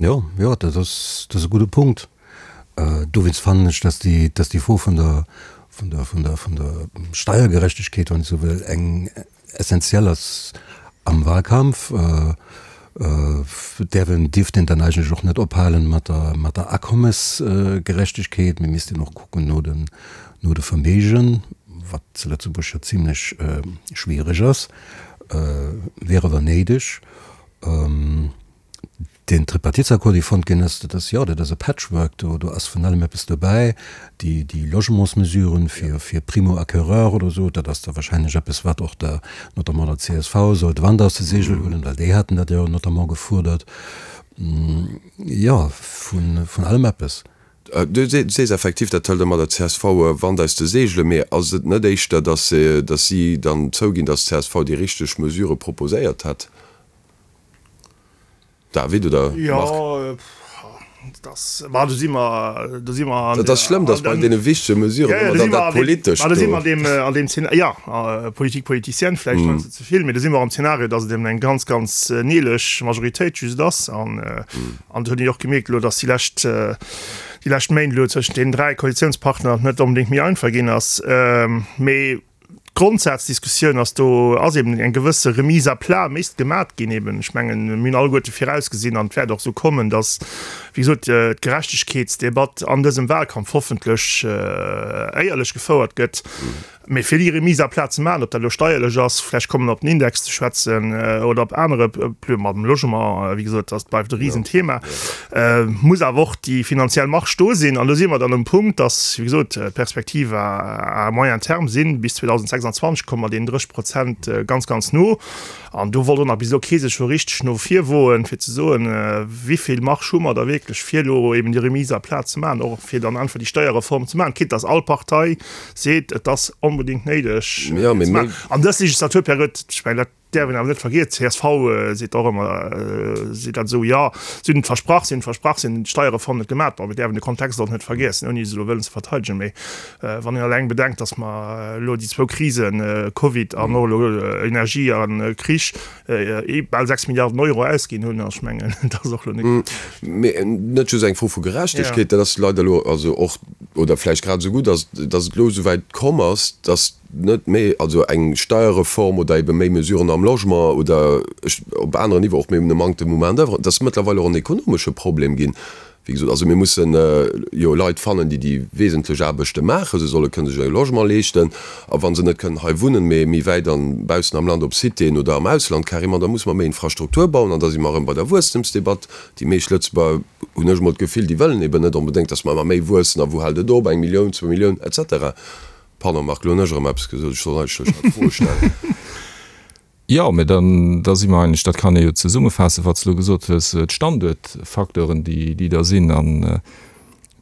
F: Jo, jo, dat ass, dat ass e gudde Punkt. Dowéinst fannen ech, dass déi, dass déi Fro vun der, vun der, vun der, vun der Steiergerechtegkeet, wann ech esou wëll, eng, Essentiell ass am Wahlkampf, däerf een, dierft een dann eigentlech och net ophalen mat der, mat der Akommesgerechtegkeet. Mir missten och kucken no den, no de Verméigen, wat zu Lëtzebuerg jo zimlech schwiereg ass, wier awer néideg. Deen Tripartitsaccord, dee fonnt ginn ass, dat ass, jo, dat ass e Patchwork, do, do ass vun allem eppes dobäi. Déi, déi Logementsmesuren fir, fir Primo-acquéreur oder esou, dat ass da wahrscheinlech eppes, wat och der, notamment der csv soll de Wand aus de Seegel huelen, well déi haten dat jo notamment gefuerdert. Jo, vun, vun allem eppes.
C: Du sees effektiv, dat hëlt ëmmer der csv Wand aus de Seegelen. Mee ass et net éischter, datt, datt si dann zouginn, datt d'CSV déi richteg Mesurë proposéiert hätt? David oder Marc?
E: Jo, dat, ma do si mer, do si mer an
C: Dat ass schlëmm, datt bei deene wichtege Mesuren ëmmer dann dat Politescht
E: do. Do si mer an deem, an deem Zena, jo, Politique politicienne vläicht heiansdo ze vill, mee do si mer am Zeenario, datt et eben eng ganz, ganz neelech Majoritéit just ass. An, an do huet een jo och gemierkt elo, datt déi lescht, déi lescht Méint elo tëschent deenen 3 Koalitiounspartner net onbedéngt méi einfach ginn ass. Mee D'Grondsazdiskussioun ass, do ass eben eng gewësse Remise à plat misst gemat ginn eben. Ech mengen, mir hunn alleguerte virausgesinn an et wäert och esou kommen, datt, wéi gesot, d'Gerechtegkeetsdebatt an dësem Wahlkampf hoffentlech éierlech gefouert gëtt. Mee fir déi Remise à plat ze maachen, ob dat elo steierlech ass, vläicht komme mer op den Index ze schwätzen oder op anere Pl-, mam Logement, wéi gesot, dat bleift e Risenthema. Muss awer och déi finanziell Marge do sinn. An do si mer dann um Punkt, dass, wéi gesot, d'Perspektiv à moyen terme sinn, bis 2026 komme mer deenen 30 Prozent ganz, ganz no. An do wollt och nach bis elo kee sech scho richteg no vir woen, fir ze soen, wéi vill Marge hu mer da wierklech, fir elo eben déi Remise à plat ze maachen, och fir dann einfach déi Steierreform ze maachen, quitte dass all Partei seet, et ass onbedéngt néideg ze maachen. An dës Legislaturperiod, ech mengen, dat Däerf een awer net vergiessen, csv seet och ëmmer, seet dat esou, jo, si hunn et versprach, si hunn et versprach, si hunn d'Steierreform net gemaach. Bon, mir däerfen de Kontext och net vergiessen, ouni se elo wëllen ze verteidegen, mee wann een eleng bedenkt, datt mer elo déi zwou Krisen, Covid an och elo Energie a Krich, bal 6 Milliarden Euro ausginn hunn, ech mengen, dat ass och elo net.
C: Mee net just eng Fro vu Gerechtegkeet, dat ass leider elo also och, oder vläicht grad esou gutt, datt et elo esouwäit komm ass, datt, net méi, also eng Steierreform oder ebe méi Mesuren am Logement oder op aneren Niveau och, mir hunn e Manktem u Main d'oeuvre, et ass mëttlerweil och en ekonomesche Problem ginn, wéi gesot. Also mir mussen jo Leit fannen, déi déi wesentlech Aarbechte maachen, se solle kënnen sech e Logement leeschten a wa se net kënnen hei wunnen, mee méi wäit an baussen am Land op Citéen oder am Ausland carrément, da musse mer méi Infrastruktur bauen an da si mer erëm bei der Wuesstemsdebatt. Déi meescht Lëtzebuerger, hunn ech emol d'Gefill, déi wëllen eben net onbedéngt, datt mer ëmmer méi wuessen a wou hält et op, eng Millioun, zwou Millioun et cetera. Pardon Marc, lo hunn ech erëm eppes gesot, ech sollt eigentlech nach d'Fro stellen.
D: Jo, mä dann, da si mer eigentlech, dat kann ee jo zesummefaassen, wat s de elo gesot hues, d'Standuertfacteuren, déi, déi da sinn. An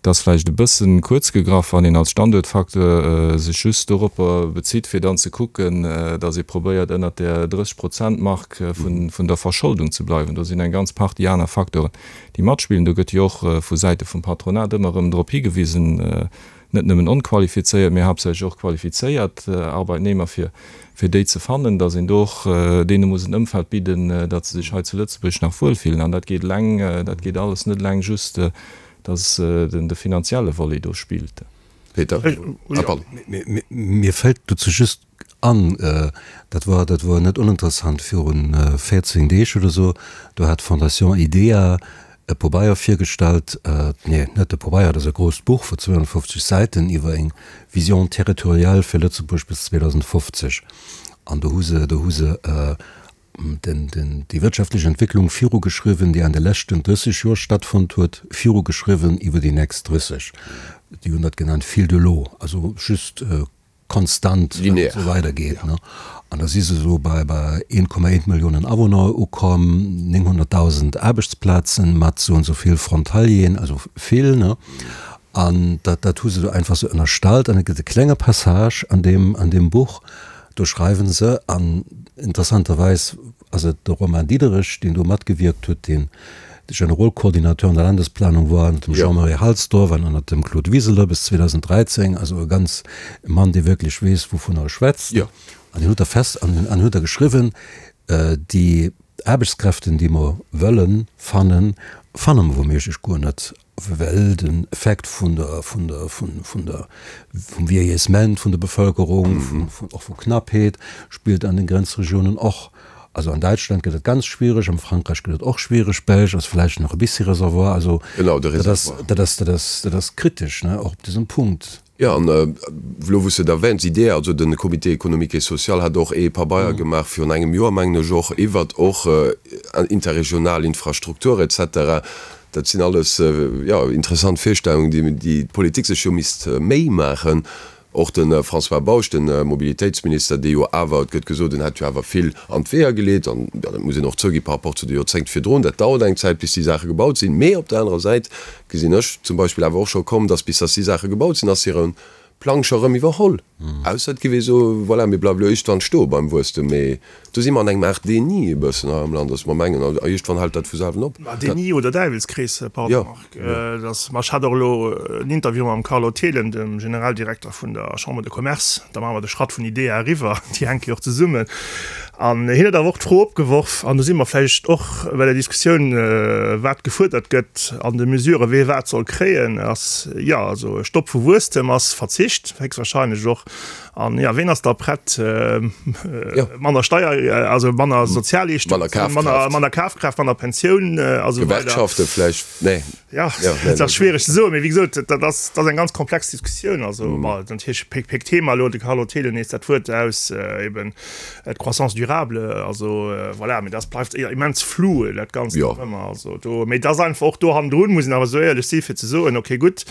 D: et ass vläicht e bësse kuerz gegraff, wann een als Standuertfacteur sech just doropper bezitt, fir dann ze kucken, datt ee probéiert, ënnert där 30 Prozent-Mark vun, vun der Verscholdung ze bleiwen. Do sinn eng ganz Partie aner Facteuren, déi matspillen. Do gëtt jo och vu Säite vum Patronat ëmmer erëm drop higewisen, net nëmmen onqualifizéiert, mee haaptsächlech och qualifizéiert Arbeitnehmer, fir fir déi ze fannen, datt een do och deene muss en Ëmfeld bidden, datt se sech hei zu Lëtzebuerg nach wuelfillen. An dat geet eleng, dat geet alles net eleng just, datt den de finanzielle Volet do spillt.
C: Peter, ah pardon.
F: Mir fält dozou just an, dat war, dat war net oninteressant, viru 14 Deeg oder esou, do hat d'Fondation IDEA e Pobeier virgestallt, nee, net e Pobeier, dat ass e grousst Buch vu 250 Säiten iwwer eng Vision territoriale fir Lëtzebuerg bis 2050. An do hu se, do hu se den, den, déi wirtschaftlech Entwécklung virugeschriwwen, déi an de leschten 30 Joer stattfonnt huet, virugeschriwwen iwwer déi nächst 30. Déi hunn dat genannt fil de l'eau, also just konstant
C: Linear.
F: esou weidergeet. An da si se esou bei 1,1 Milliounen Awunner ukomm, 900.000 Aarbechtsplazen mat esou an esou vill Frontalieren, also vill. Ne? An dat, dat hu se do einfach esou ënnerstallt. An et gëtt e klenge Passage an deem, an deem Buch, do schreiwe se, an interessanterweis ass et de Romain Diederich, deen do matgewierkt huet, deen de Generalkoordinateur an der Landesplanung war ënnert dem Jean-Marie Halsdorf an ënnert dem Claude Wiseler bis 2013, also e ganz e Mann, dee wierklech weess, wouvunner e schwätzt. An deen huet da fest an an huet da geschriwwen, déi Aarbechtskräften, déi mer wëlle fannen, fanne mer wouméiglech guer net. Well den Effekt vun der, vun der, vun, vun der, vum Vieillissement vun der Bevölkerung, vun, vun, och vu Knappheet, spillt an den Grenzregionen och. Also an Däitschland gëtt et ganz schwierig, am Frankräich gëtt et och schwierig, Belsch ass vläicht nach e bissi Reservoir. Also
C: Genau, de
F: dat ass,
C: Reservoir.
F: dat ass, dat ass, dat ass kritesch, ne, och op dësem Punkt.
C: Jo, an elo wou s de et erwähns, IDEA, also de Comité économique et social hat och ee Pabeier gemaach virun engem Joer, mengen ech och, iwwert och interregional Infrastruktur et cetera. Dat sinn alles, jo, interessant Virstellungen, déi déi d'Politik sech jo misst Méi maachen. Och de François Bausch, de Mobilitéitsminister, dee jo awer, et gëtt gesot, en hätt jo awer vill an d'Weeër geleet, an jo, dat muss een och zougi par rapport zu de Joerzéngt virdrun, dat dauert eng Zäit, bis déi Saache gebaut sinn. Mee op der anerer Säit gesinn ech zum Beispill awer och scho komm, dass bis dass déi Saache gebaut sinn, ass hire Plang scho rëm iwwerholl. Ausser et géif ee soen, voilà, mir bleiwe elo iergendwann stoe beim Wuesstem. Mee do si mer an engem Aart Déni e bëssen hei am Land, dass mer mengen, a iergendwann hält dat vu selwen op.
E: Ma Déni oder Däiwelskrees, pardon Marc, dass, ma ech hat och elo en Interview mam Carlo Thelen, dem Generaldirekter vun der Chambre de Commerce, da maache mer de Schratt vun IDEA eriwwer, déi hänke jo och zesummen, An hien huet awer och d'Fro opgeworf, an do si mer vläicht och bei der Diskussioun, wat gefuerdert gëtt an de Mesuren, wee wat soll kréien, ass, jo, also e Stopp vu Wuesstem ass Verzicht héchstwahrscheinlech och. An, jo, ween ass da prett, manner Steier, also manner Sozialleeschtungen, manner Kafkraaft, manner Pensioun a sou weider.
C: Gewerkschafte vläicht, nee.
E: Ja, dat ass schwiereg ze soen, mee wéi gesot, dat ass, dat ass eng ganz komplex Diskussioun. Also, ma natierlech péck, péck Thema elo, de Carlo Thelen nees dat Wuert aus, eben d'Croissance durable, also voilà, mee dat bleift immens flou, dat Ganzt nach ëmmer. Also do, mee dat ass einfach och do hannendrun, muss een awer esou éierlech si fir ze soen, okay gutt,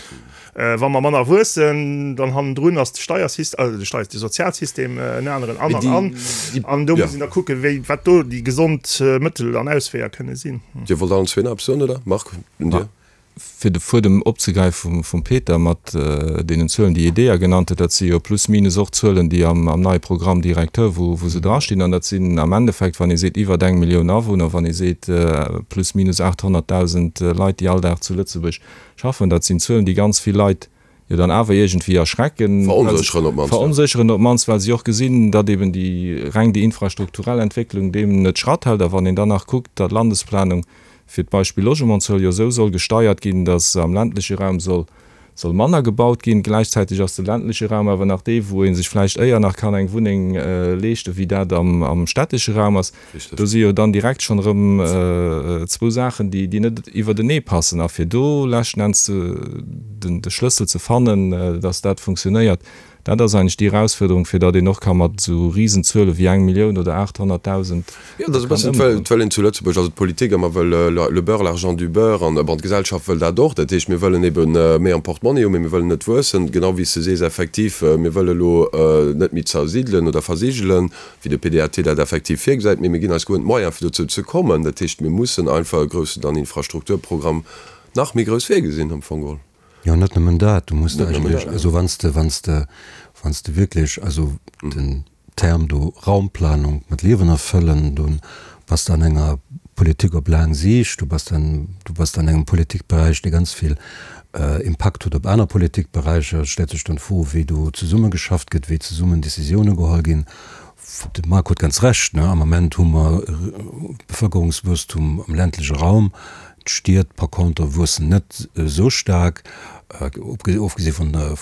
E: Wa mer manner wuessen, dann hannendrun ass de Steiersystem, also de Steier, de Sozialsystem en aneren an an an. An do muss een da kucken, wéi, wat do déi gesond Mëttel an Ausweeër kënne sinn.
C: Dir wollt allen zwee nach eppes soen, oder? Marc, un dir.
D: Fir de Fuedem opzegräife vum Peter mat deenen Zuelen, déi IDEA genannt huet, dat si jo plus minus och Zuelen, déi am neie Programme directeur, wou se drastinn. An dat sinn am Endeffekt, wann ee seet iwwert eng Millioun Awunner, wann ee seet plus minus 800.000 Leit, déi all Dag zu Lëtzebuerg Schaffen, dat sinn Zuelen, déi ganz vill Leit jo dann awer iergendwéi erschrecken,
C: Veronsécheren op d'mannst.
D: Veronsécheren op d'mannst, well si och gesinn, datt eben déi reng déi infrastrukturell Entwécklung deem net Schratt hält. A wann een dann nach kuckt, datt d'Landesplanung fir d'Beispill Logementszuel jo esou soll gesteiert ginn, datt am ländleche Raum soll soll manner gebaut ginn, gläichzäiteg ass de ländleche Raum awer nach dee wou ee sech vläicht éier nach kann eng Wunneng leeschten, wéi dat am stättesche Raum ass. Do si jo dann direkt schonn erëm zwou Saachen, déi net iwwertenee passen. A fir do leschten Enns de Schlëssel ze fannen, dass dat funktionéiert, Dat ass eigentlech déi Erausfuerderung, fir datt een och ka mat esou Risenzuele wéi eng Millioun oder 800.000
C: Jo, dat ass e bëssen, et wëll een zu Lëtzebuerg, also d'Politik ëmmer wëll le beurre, l'argent du beurre, an bon, d'Gesellschaft wëll dat och. Dat heescht, mir wëllen ebe méi am Portmonni hunn, mee mir wëllen net wuessen, genau wéi s de sees, effektiv, mir wëlle elo net méi zersidelen oder versigelen, wéi de PDAT dat effektiv virgesäit, mee mir ginn eis guer net d'Moyens, fir dozou ze kommen. Dat heescht, mir mussen einfach e groussen dann Infrastrukturprogramm nach méi grouss virgesinn am Fong geholl.
F: Jo, net nëmmen dat, du muss eigentlech, also wann s de, wann s de, wann s de wierklech, also den Term do Raumplanung mat Liewen erfëllen, du bass de an enger Politik op laang Siicht, du bass an, du bass an engem Politikberäich, dee ganz vill Impakt huet op aner Politikberäicher. Et stellt sech dann d'Fro, wéi do zesummegeschafft gëtt, wéi zesummen Décisioune geholl ginn. De Marc huet ganz Recht, ne, am Ament hu mer Bevëlkerungswuesstum am ländleche Raum, d'Stied par contre wuessen net esou staark, ofgesi vun der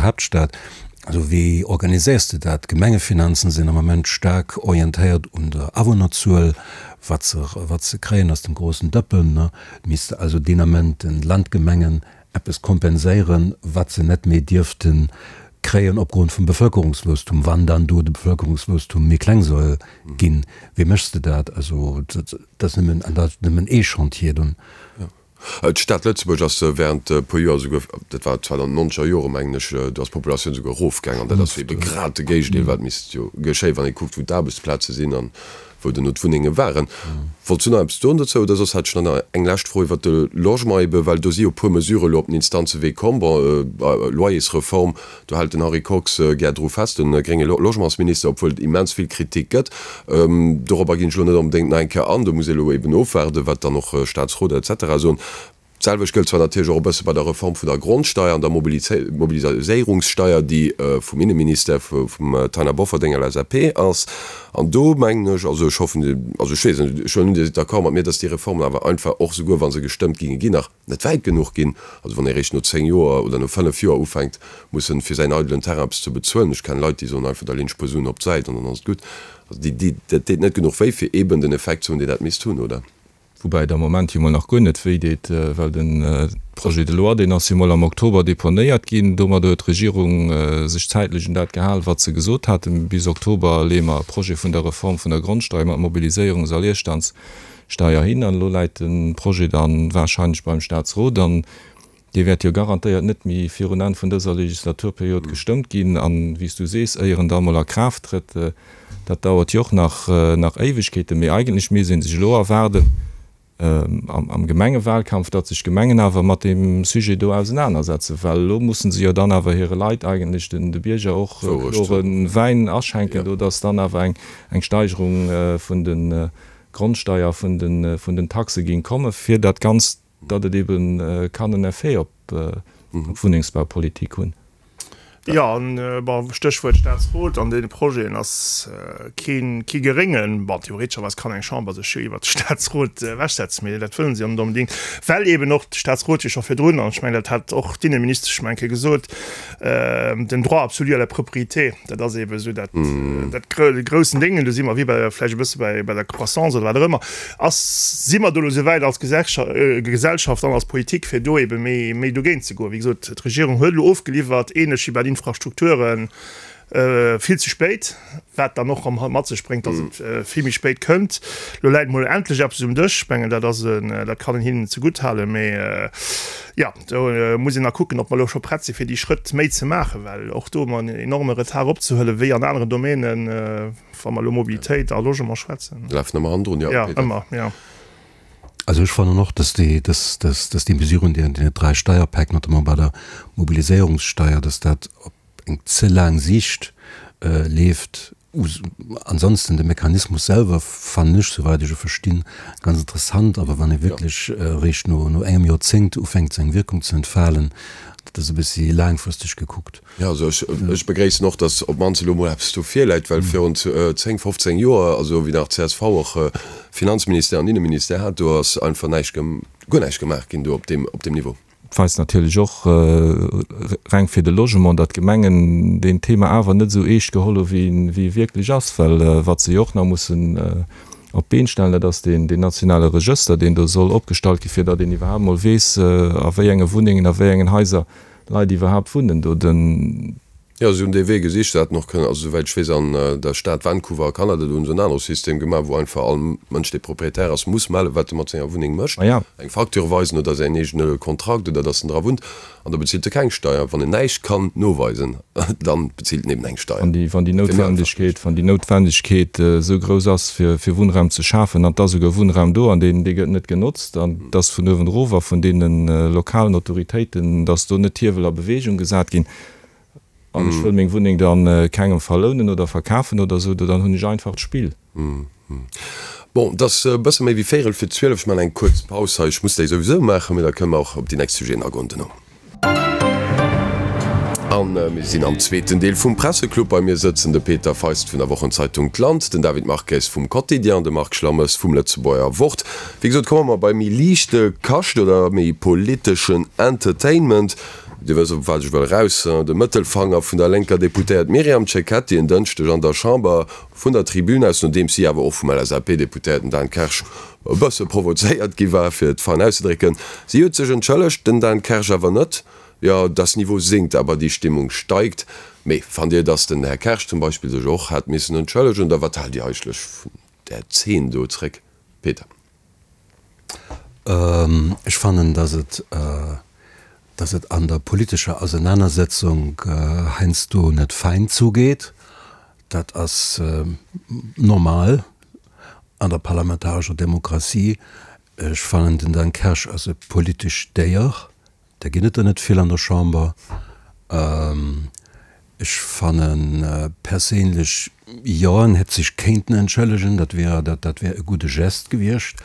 F: Haaptstad. Also wéi organiséiers de dat? D'Gemengefinanzen sinn am Ament staark orientéiert un der Awunnerzuel, wat se wat se kréien aus dem grossen Dëppen, ne. Misst also deen Ament den Landgemengen eppes kompenséieren, wat se net méi dierfte kréien opgrond vum Bevëlkerungswuesstum, wann dann do de Bevëlkerungswuesstum méi kleng soll ginn. Wéi méchs de dat? Also dat ass nëmmen, an dat ass nëmmen ee Chantier dunn.
C: D'Stad Lëtzebuerg ass während e puer Joer esouguer, dat war zwar dann nonzeger Jore mengen ech, do ass d'Populatioun esouguer erofgaang an dat ass ebe grad de Géigendeel wat misst jo geschéien, wann ee kuckt wou d'Aarbechtsplaze sinn an wou duerno d'Wunnenge waren. Wollts du nach eppes soen dozou oder soss hat ech nach eng lescht Fro iwwert de Logement ebe well do si jo e puer Mesurë elo op den Instanzewee komm. Bon, Loyersreform, do hält den Henri Kox gär dru fest, de grénge Logementsminister, obwuel et immens vill Kritik gëtt. Dorobber ginn ech elo net onbedéngt nach eng Kéier an, do muss ee elo eben ofwaarden, wat dann och Staatsrot et cetera soen. D'selwecht gëllt zwar natierlech och e bësse bei der Reform vun der Grondsteier an der Mobiliséierungssteier, déi vum Inneministère, vum Taina Bofferding, LSAP, ass. An do mengen ech, also ech hoffen, also ech weess net, ech huelen un, Dir sidd d'accord mat mir, dass déi Reformen awer einfach och, souguer wa se gestëmmt ginge ginn, nach net wäit genuch ginn. Also wann ee réischt no 10 Joer oder no 5 Joer ufänkt mussen, fir säin eidelen Terrain eppes ze bezuelen, ech kennen Leit, déi soen einfach, da leen ech e puer Suen op d'Säit an dann ass et gutt. Also déi, déi, dat deet net genuch wéi, fir eeben den Effekt ze hunn, deen dat misst hunn, oder?
D: Woubäi et am Moment jo mol nach guer net wéi deet, well de Projet de loi, deen ass jo mol am Oktober deponéiert ginn. Domadder huet d'Regierung sech zäitlech un dat gehal, wat se gesot haten, Bis Oktober leeë mer e Projet vun der Reform vun der Grondsteier mat Mobiliséierungs a Leerstandssteier hin. An elo läit de Projet da warscheinlech beim Staatsrot. An Dee wäert jo garantéiert net méi virun Enn vun dëser Legislaturperiod gestëmmt ginn. An, wéi s du sees, éier en da emol a Kraaft trëtt, dat dauert jo och nach, nach Éiwegkeeten. Mee eigentlech misst ee sech elo erwaarden am Gemengewahlkampf, datt sech d'Gemengen awer mat deem Sujet do ausenanersetzen, well elo musse se jo dann awer hire Leit eigentlech, den, de Bierger och klore Wäin aschenken do, datt dann awer eng, eng Steigerung vun de Grondsteier, vun de, vun den Taxe géing kommen, fir dat Ganzt datt et ebe kann en Effet op d'Wunnengsbaupolitik hunn.
E: Jo, an, bon, Stéchwuert Staatsrot, an deene Projeten ass keen, kee geréngen, bon, theoretescherweis kann eng Chamber sech jo iwwert de Staatsrot ewechsetzen, mee dat wëllen se jo net onbedéngt, well eben och de Staatsrot jo scho virdrun, an ech mengen, dat hat och d'Inneministesch meng Kéier gesot, den Droit absolu à la propriété, dat ass eben esou dat, dat groussen Déngen, do si mer wéi bei, vläicht e bësse bei, bei der Croissance oder wat och ëmmer. Ass, si mer do elo esou wäit als Gesellschaft an als Politik, fir do ebe méi, méi dogéint ze goen? Wéi gesot, d'Regierung huet elo ofgeliwwert, ähnlech wéi bei den Infrastrukturen, vill ze spéit, wat dann och erëm mat sech bréngt, datt et vill méi spéit kënnt. Elo läit emol endlech eppes um Dësch. Ech mengen, dat ass en, dat kann een hinnen zegutt halen. Mee jo, do muss een nach kucken, ob mer elo scho prett si fir déi Schrëtt méi ze maachen, well och do hu mer en enorme Retard opzehuelen, wéi an aneren Domänen. Wa mer elo Mobilitéit a Logement schwätzen.
C: Lafen ëmmer hannendrun, jo.
E: Ja, ëmmer, jo.
F: Also ech fannen och, dass déi, dass, dass, dass déi Mesuren, déi an deenen 3 Steierpäck, notamment bei der Mobiliséierungssteier, dass dat op eng ze laang Siicht leeft. Ansonsten de Mechanismus selwer fannen ech, souwäit ech e verstinn, ganz interessant. Awer wann e wierklech eréischt no, no engem Joerzéngt ufänkt seng Wierkung ze entfalen, dat ass e bëssi laangfristeg gekuckt.
C: Jo, also ech, ech begréissen och, datt op d'mannst elo mol eppes do virläit, well virun 10, 15 Joer, also wéi nach csv och Finanzministère an Inneministère hat, do ass einfach näischt, guer näischt gemaach ginn do op deem, op deem Niveau.
D: Et weist natierlech och, reng fir de Logement, datt d'Gemengen deen Thema awer net esou eescht geholl hu wéi e wierklech ass, well wat se jo och nach mussen op d'Been stellen, dat ass deen nationale Regëster, deen do soll opgestallt ginn, fir datt een iwwerhaapt mol weess, a wéi enge Wunnengen, a wéi engen Haiser. Leit iwwerhaapt wunnen do. Den.
C: Jo, si hunn dee Wee gesicht. Se hätten och kënnen, also souwäit ech weess, an der Stad Vancouver a Kanada, do hunn se en anere System gemaach, wou einfach all Mënsch, dee Proprietär ass, muss mellen, wat e mat senger Wunneng mécht, eng Facture weisen oder säin eegene Kontrakt oder datt en dra wunnt, an da bezilt e keng Steier. Wann en näischt kann noweisen, da bezilt en eben eng Steier.
D: Wann déi, wann déi Noutwendegkeet, wann déi Noutwendegkeet esou grouss ass, fir, fir Wunnraum ze schafen, an et ass esouguer Wunnraum do an deen, dee gëtt net genotzt, an et ass vun uewen erof a vun deene lokalen Autoritéiten, datt do net d'Hiewel a Bewegung gesat ginn, An ech wëll meng Wunneng dann kengem verlounen oder verkafen oder esou, dann hunn ech einfacht Spill.
C: Bon, et ass e bësse méi wéi véierel fir 12. Ech maachen eng kuerz Paus hei. Ech muss déi souwisou maachen, mee da kënne mer och op déi nächst Sujeten agoen duerno. A mir sinn am zweeten Deel vum Presseclub. Bei mir sëtzen de Peter Feist vun der Wochenzeitung D'Land, den David Marques vum Quotidien an de Marc Schlammes vum Lëtzebuerger Wort. Wéi gesot, komme mer bei méi liichte Kascht oder méi politeschen Entertainment. Dir wësst, op wat ech wëll eraus, De Mëttelfanger vun der lénker Deputéiert Myriam Cecchetti en Dënschdeg an der Chamber vun der Tribün aus, nodeems si awer och vum LSAP-Deputéierten Dan Kersch e bësse provozéiert gi war, fir et fein auszedrécken. Si huet sech entschëllegt, den Dan Kersch awer net. Jo, das Niveau sinkt, aber die Stimmung steigt. Mee fannt Dir, datt den Här Kersch zum Beispill sech och hätt missen entschëllegen, oder wat haalt Dir eigentlech vun där Zeen do zréck, Peter?
F: Ech fannen, dass et, dass et an der politescher Ausenanersetzung heiansdo net fein zugeet. Dat ass normal an der parlamentarescher Demokratie. Ech fannen, den Dan Kersch ass e politescht Déier. Där ginn et der net vill an der Chamber. Ech fanne perséinlech, jo, en hätt sech kéinten entschëllegen, dat wär, dat wär e gudde Geste gewiescht.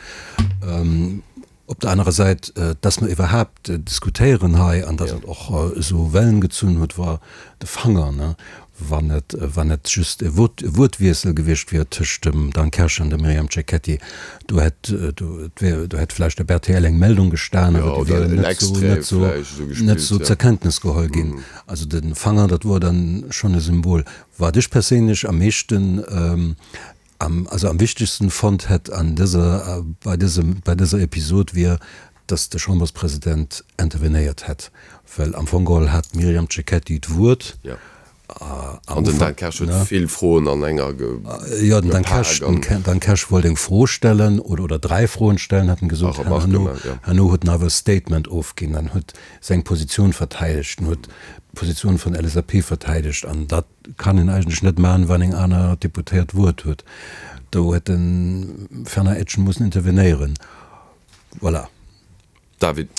F: Op der anerer Säit, dass mer iwwerhaapt diskutéieren hei an dass et och esou Wellen gezunn huet, war de Fanger, ne? Wann et, wann et just e Wuert, e Wuertwiessel gewiescht wier tëscht dem Dan Kersch an dem Myriam Cecchetti, do hätt, do, et wär, do hätt vläicht op rtl eng Meldung gestan, awer déi wier net esou, net esou, net esou zur Kenntnis geholl ginn. Also de Fanger, dat wor dann schonn e Symbol. Wat ech perséinlech am meeschten, am, also am wichtegsten fonnt hätt an dëser, bei dësem, bei dëser Episod wier, dass de Chamberspresident intervenéiert hätt, well am Fong geholl hat d'Myriam Cecchetti d'Wuert.
C: Jo. An den Dan Kersch huet vill Froen an enger
F: gepak. Jo, den Dan Kersch, den Dan Kersch wollt eng Fro stellen oder, oder dräi Froen stellen, hat en gesot. Herno, herno huet en awer e Statement ofginn an huet seng Positioun verteidegt, en huet d'Positioun vun LSAP verteidegt an dat kann een eigentlech net maachen, wann eng aner Deputéiert d'Wuert huet. Do huet de Fernand Etgen mussen intervenéieren. Voilà.
C: David.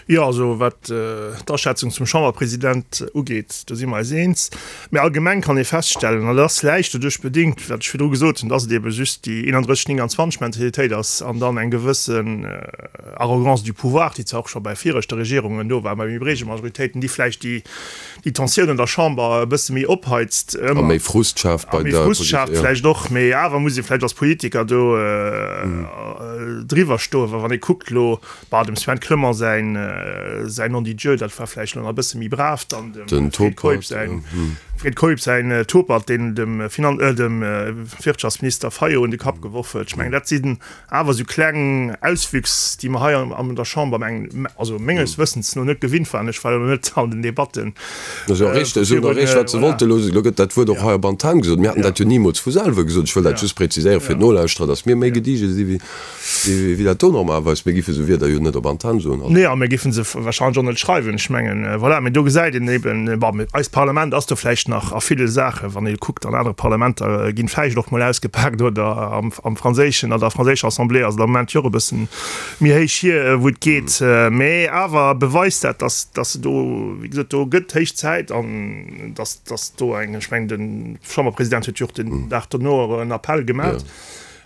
E: Jo, also wat d'Aschätzung zum Chamberpresident ugeet, do si mer eis eens. Mä allgemeng kann ee feststellen, an dat ass vläicht doduerch bedéngt, wat ech virdru gesot hunn, dass et ebe just déi 31, 29 Mentalitéit ass an dann eng gewëssen Arrogance du pouvoir, déi zwar och scho bei viregte Regierungen do war, bei méi breege Majoritéiten, déi vläicht déi déi Tensioun an der Chamber e bësse méi opheizt.
C: A méi Frust schaaft bei
E: der. A méi Frust schaaft vläicht och, mee awer muss ee vläicht als Politiker do driwwer stoen, well wann ee kuckt elo, bah, dem Sven Clement säin säin Non dit Dieu, dat war vläicht elo nach e bësse méi brav, dann dem Fred Keup säin Fred Keup säin Topert, deen dem Finan dem Wirtschaftsminister Fayot un de Kapp geworf huet. Ech mengen, dat sinn Awer esou kleng Auswüchs, déi mer hei an der Chamber, meng, also menges Wëssens no net gewinnt waren, ech war jo net an den Debatten.
C: Dat ass jo richteg, si hunn erreecht, wat se wollten. Elo gëtt dat Wuert och hei op Antenn gesot. Mir haten dat jo nimools vu selwer gesot. Ech wëll dat just präziséieren fir d'Nolauschterer, datt mir méi gediege si wéi dat do normalerweis. Mir géife sou Wierder jo net op Antenn soen.
E: Nee, a mir géife se warscheinlech och net schreiwen. Ech mengen, voilà, mee do gesäit een eben, bon, eist Parlament ass do vläicht nach a ville Saachen, wann ee kuckt, an anere Parlamenter ginn vläicht och mol ausgepaakt oder am. Am franséischen, an der franséischer Assemblée ass et am Moment jo och e bëssen méi héich hier, wou et geet. Mä awer beweist dat, datt, datt se do, wéi gesot, do gëtt héich Zäit an datt, datt do eng, ech mengen, de Chamberpresident huet jo och den Dag dono en Appell gemaach,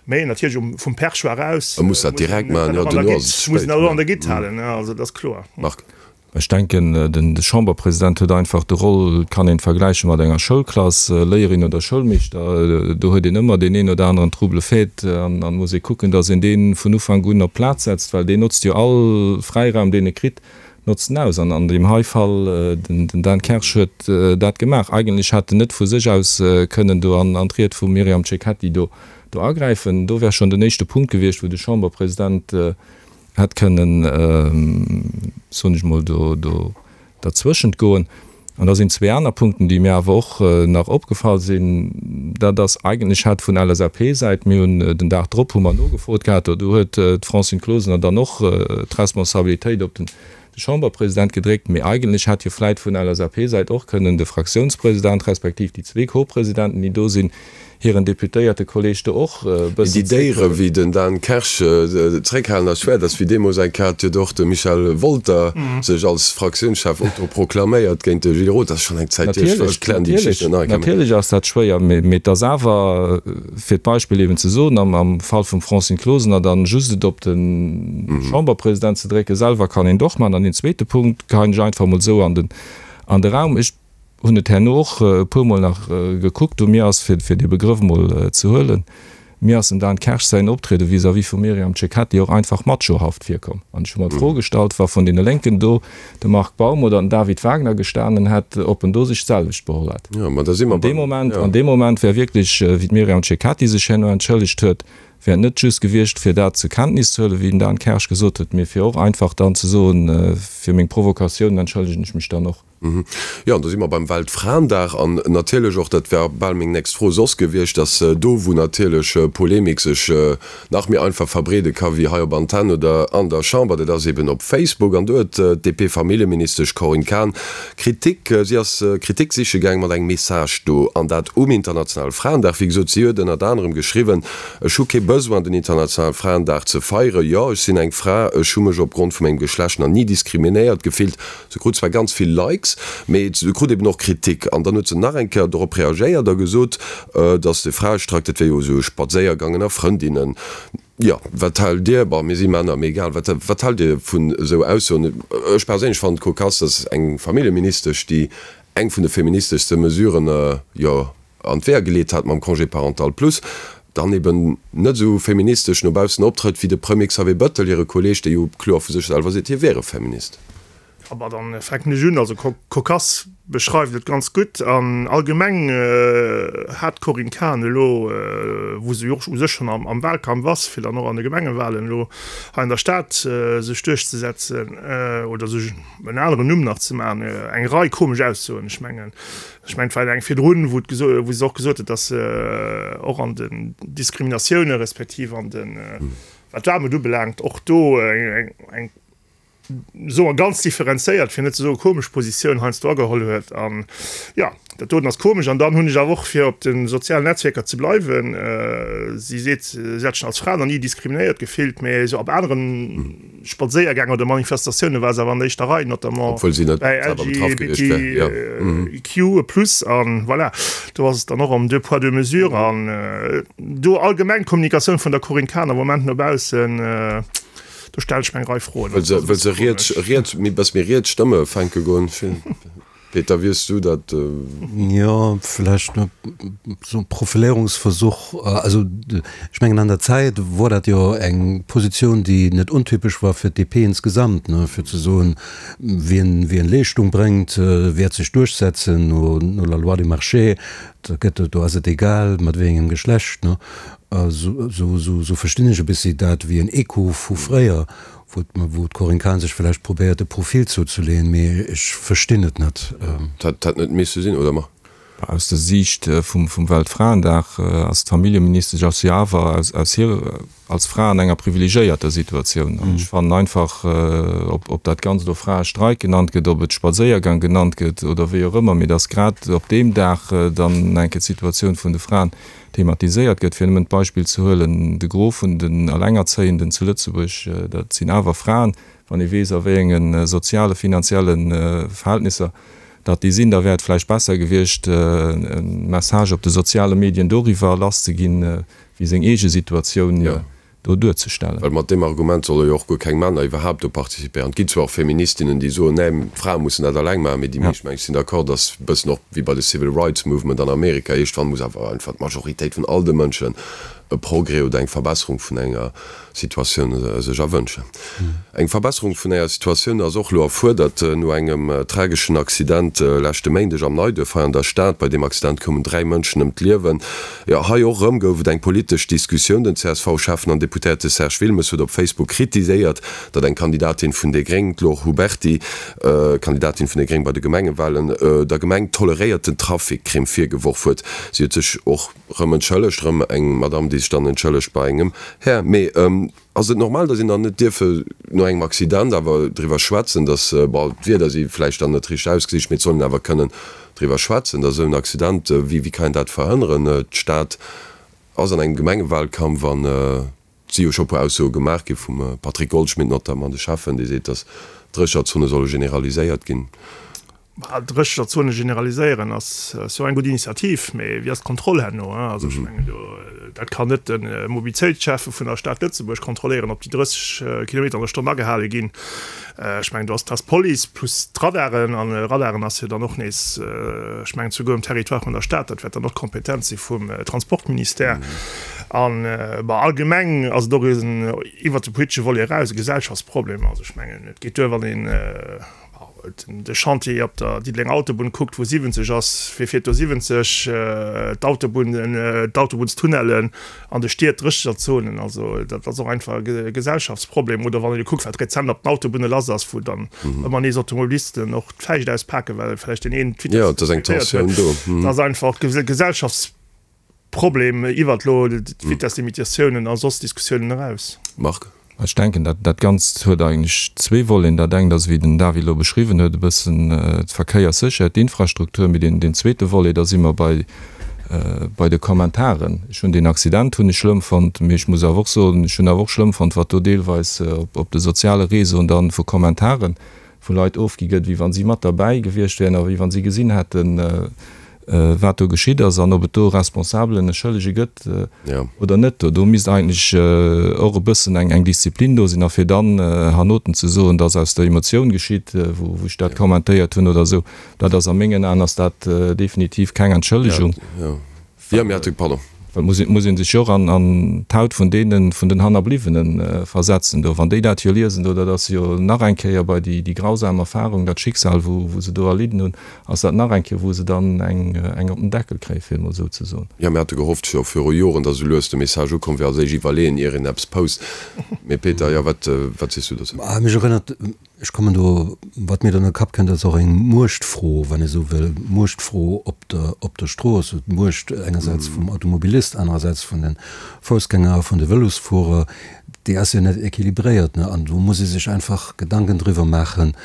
E: mä natierlech um, vum Perchoir aus.
C: E muss dat direkt maachen, jo,
E: duerno ass et ze spéit. Muss en dat och an der Gitt halen, also dat ass kloer.
C: Marc.
D: Ech denken, de Chamberpresident huet einfach de Roll, et kann een et vergläiche mat enger Schoulklass, Léierin oder Schoulmeeschter, do huet een ëmmer deen een oder aneren Trouble-fête an an muss ee kucken, datt een dee vun Ufank un op d'Plaz setzt, well deen notzt jo all Fräiraum, deen e kritt, notzt en aus. An an deem hei Fall, den Dan Kersch huet dat gemaach. Eigentlech hätt en net vu sech aus kënnen do an d'Ried vum Myriam Cecchetti do agräifen. Do wär schonn den éischte Punkt gewiescht, wou de Chamberpresident hätt kënnen, soen ech mol, do, do. Derzwëschent goen. An da sinn zwee aner Punkten, déi mir awer och nach opgefall sinn. Dat ass eigentlech hat vun LSAP-Säit, mir hunn den Dag drop hu mer nogefrot gehat, do huet d'Francine Closener dann och d'Responsabilitéit op den Chamberpresident gedréckt, mee eigentlech hätt jo vläit vun LSAP-Säit och kënnen de Fraktiounspresident respektiv déi zwee Co-Presidenten, déi do sinn, hiren Deputéiertekolleeg do och e
C: bëssen Déi Déiere wéi den Dan Kersch zréckhalen ass schwéier. Dat ass wéi deemools eng Kéier hat huet och de Michel Wolter sech als Fraktiounschef autoproklaméiert géint de Gilles Roth. Dat ass schonn eng Zäit hier. Ech klären déi Geschicht net nach eng
D: Kéier. Natierlech ass dat schwéier, mee et ass awer, fir d'Beispill eben ze soen, am Fall vum Francine Closener dann just et op de Chamberpresident ze drécken, selwer kann een et och maachen. An deen zweete Punkt geheien ech einfach emol esou an de Raum. Ech hunn et herno och e puermol nach gekuckt, u mir ass, fir dee Begrëff emol ze huelen, mir ass dem Dan Kersch säin Optriede vis-à-vis vum Myriam Cecchetti och einfach machohaft virkomm. An ech hu mer d'Fro gestallt, wa vun deene Lénken do de Marc Baum oder den David Wagner gestanen hätt, ob en do sech d'selwecht beholl hätt. An deem Moment, an deem Moment wär wierklech, wéi d'Myriam Cecchetti sech herno entschëllegt huet, wär et net just gewiescht, fir dat zur Kenntnis ze huelen, wéi den Dan Kersch gesot huet, mee fir och einfach dann ze soen, fir meng Provokatiounen entschëllegen ech mech dann och.
C: Jo, an do si mer beim Weltfraendag an natierlech och, dat wär bal meng nächst Fro soss gewiescht, dass do, wou natierlech Polemik sech nach méi einfach verbreede ka wéi hei op Antenn oder an der Chamber, dat ass eben op Facebook. An do huet d'DP-Familljeministesch Corinne Cahen Kritik, si ass Kritik siche gaang mat engem Message do, an dat um internationale Fraendag. Wéi gesot, si huet ënnert anerem geschriwwen, Ech hu kee Besoin, den internationale Fraendag ze feieren. Jo, ech sinn eng Fra, ech hu mech opgrond vu mengem Geschlecht nach ni diskriminéiert gefillt. Se krut zwar ganz vill Likes, mee se krut eben och Kritik. An dann huet se nach eng Kéier dorop reagéiert a gesot, dass de Fraestreik, dat wär jo esou e Spadséiergang ënner Frëndinnen. Jo, wat haalt Dir, bon, mir si Männer, mee egal, wat, wat haalt Dir vun esou Aussoen? Ech perséinlech fannen et kokass, dass eng Familljeministesch, déi eng vun de feministeschste Mesuren, jo, an d'Weeër geleet hat mam Congé parental plus, dann eben net esou feministesch no baussen optrëtt wéi de Premier Xavier Bëttel, hire Kolleeg, dee jo kloer vu sech selwer seet, hie wier e Feminist.
E: Aber dann fänken ech un. Also Cocasse beschreift et ganz gutt. An allgemeng hat d'Corinne Cahen elo, wou se jo och u sech schonn am Wahlkampf ass, fir dann och an de Gemengewahlen elo hei an der Stad sech duerchzesetzen oder sech en aneren Numm nach ze maachen, eng Rei komesch Aussoen. Ech mengen, ech mengen, et war eng virdrun, wou wou se och gesot huet, datt se och an den Diskriminatioune respektiv an den, wat d'Aarmut ubelaangt, och do eng soe mer ganz differenzéiert, fir net ze soe komesch Positioun heiansdo ageholl huet. An jo, dat doten ass komesch. An dann hunn ech awer och, fir op de sozialen Netzwierker ze bleiwen, si seet, si hätt sech als Fra nach ni diskriminéiert gefillt, mä esou op anere Spadséiergäng oder Manifestatioune war se awer an der éischter Rei, notamment
C: bäi
E: LGBTIQ plus. An voilà, do ass et dann och ëm deux poids, deux mesures. An do allgemeng d'Kommunikatioun vun der Corinne Cahen am Moment no baussen, Do stellen ech mir eng Rei Froen.
C: Wëll se, wëll se riets, riets, méi, bëss méi riets Stëmme fänke goen. Peter, wéi hues du dat?
F: Jo, vläicht esou e Profiléierungsversuch. Also ech mengen an der Zäit wor dat jo eng Positioun, déi net untypesch war fir d'DP insgesamt, ne, fir ze soen, wien, wien Leeschtung bréngt, wäert sech duerchsetzen no, no la loi du marché. Da gëtt, do ass et egal mat wéi engem Geschlecht, ne. Esou verstinn ech e bëssi dat wéi en Echo vu fréier, wou d'Corinne Cahen sech vläicht probéiert e Profil zouzeleeën, mee ech verstinn et net.
C: Dat hätt net misse sinn, oder ma?
D: Aus der Siicht vum Weltfraendag ass d'Familljeministesch ass jo awer aus hir als Fra an enger privilegiéierter Situatioun. An ech fannen einfach, ob dat Ganzt elo Fraestreik genannt gëtt, ob et Spadséiergang genannt gëtt oder wéi och ëmmer, mee datt grad op deem Dag dann eng Kéier d'Situatioun vun de Fraen thematiséiert gëtt. Fir nëmmen d'Beispill ze huelen, de Gros vun den Alengerzéienden zu Lëtzebuerg, dat sinn awer Fraen. Wann ee weess, a wéi enge soziale, finanzielle Verhältnisser datt déi sinn, da wär et vläicht besser gewiescht, e Message op de soziale Medien doriwwer lasszeginn, wéi seng eege Situatioun do duerzestellen.
C: Well mat deem Argument solle jo och guer keng Männer iwwerhaapt do participéieren. Et ginn zwar och Feministinnen, déi soen, nee, d'Frae mussen dat alleng maachen, mee déi meescht, meng ech, sinn d'accord, dass e bëssen och wéi bei de Civil Rights Movement an Amerika, iergendwann muss awer einfach d'Majoritéit vun all de Mënschen. e Progrès oder eng Verbesserung vun enger Situatioun sech erwënschen. Eng Verbesserung vun enger Situatioun ass och elo erfuerdert no engem trageschen Accident leschte Méindeg am Neiduerf hei an der Stad. Bei deem Accident koumen 3 Mënschen ëm d'Liewen. Jo, hei och erëm gouf et eng politesch Diskussioun. Den CSV-Schäffen an Deputéierte Serge Wilmes huet op Facebook kritiséiert, datt eng Kandidatin vun déi Gréng, d'Laure Huberty, Kandidatin vun déi Gréng bei de Gemengewalen, der Gemeng toleréierten Trafic-Crime virgeworf huet. Si huet sech och Rëm entschëllegt, rëm eng Madame, déi sech dann entschëllegt bei engem Här. Mee ass et normal, datt een dann net dierfe no engem Accident awer driwwer schwätzen, datt, bon, d'Wierder si vläicht dann net richteg ausgesicht, mee et soll een awer kënnen driwwer schwätzen, datt esou en Accident, wéi kann een dat verhënneren? D'Stad ass an engem Gemengewahlkampf an Et si jo scho e puer Aussoe gemaach gi vum Patrick Goldschmidt notamment, de Schäffen, dee seet, datt d'Drécherzone solle generaliséiert ginn.
E: D'Drécherzone generaliséieren ass jo eng gutt Initiativ, mee wéi ass d'Kontroll herno? Also ech mengen do, dat kann net de Mobilitéitsschäffe vun der Stad Lëtzebuerg kontrolléieren, ob déi 30 Kilometer an der Stonn agehale ginn. Ech mengen, do ass d'Police plus d'Radaren, an Radaren ass jo dann och nees, ech mengen souguer um Territoire vun der Stad, dat wäert dann och d'Kompetenz si vum Transportministère. An, bon, allgemeng ass et och en, iwwert de politesche Volet eraus, e Gesellschaftsproblem. Also ech mengen, et geet duer, wann een de Chantier op der Diddelenger Autobunn kuckt, wou 70 ass, wie fiert do 70? D'Autobunnen, d'Autobunnstunnellen an de Stied, d'Drécheterzonen, also dat ass och einfach e Gesellschaftsproblem. Oder wann een elo kuckt, wat rezent op den Autobunne lass ass, wou dann ëmmer nees Automobilisten och d'Fäischt auspaken, well vläicht deen een
C: d'Vitess net respektéiert
E: huet. Dat ass einfach e Gesellschaftsproblem iwwert elo d'Vitesslimitatiounen a soss Diskussiounen eraus.
C: Marc?
D: Ech denken, dat dat Ganzt huet eigentlech zwee Voleten. Dat engt ass, wéi den David elo beschriwwen huet, e bëssen d'Verkéierssécherheet, d'Infrastruktur. Mee deen zweete Volet, da si mer bei bei de Kommentaren. Ech hunn deen Accident hunn ech schlëmm fonnt, mee ech muss awer och soen, ech hunn awer och schlëmm fonnt, wat do deelweis op de soziale Réseauen dann vu Kommentaren vu Leit ofgi gëtt, wéi wa si mat derbäi gewiescht wären a wéi wa si gesinn hätten, wat do geschitt ass an ob et do e Responsabelen, e Schëllege gëtt oder net. Do misst eigentlech och e bëssen eng Disziplin do sinn. A fir dann hernoten ze soen, dass aus der Emotioun geschitt, wou ech dat kommentéiert hunn oder esou, dat ass a mengen Aen ass dat definitiv keng Entschëllegung. Well muss ee muss ee sech jo och an an d'Haut vun deenen, vun den Hannerbliwwene versetzen do. Wann déi dat jo liesen do, dat ass jo nach eng Kéier bei déi déi grausam Erfahrung, dat Schicksal wou wou se do erlidden hunn, ass dat nach eng Kéier wou se dann eng eng op den Deckel kréien, fir et mol esou ze soen.
C: Jo, mir hate gehofft scho viru Joren, datt esou lues de Message ukomm wier, als éischt iwwerleeën ier een eppes post. Mee Peter, jo, wat wat sees du dozou?
F: Mech erënnert Ech kommen do, wat mir dann an de Kapp kënnt, ass och eng Muechtfro, wann ee sou wëll, Muechtfro op der, op der Strooss. D'Muecht engersäits vum Automobilist, anerersäits vun de Foussgänger a vun de Vëlosfuerer, déi ass jo net équilibréiert. An do muss ee sech einfach Gedanken driwwer maachen,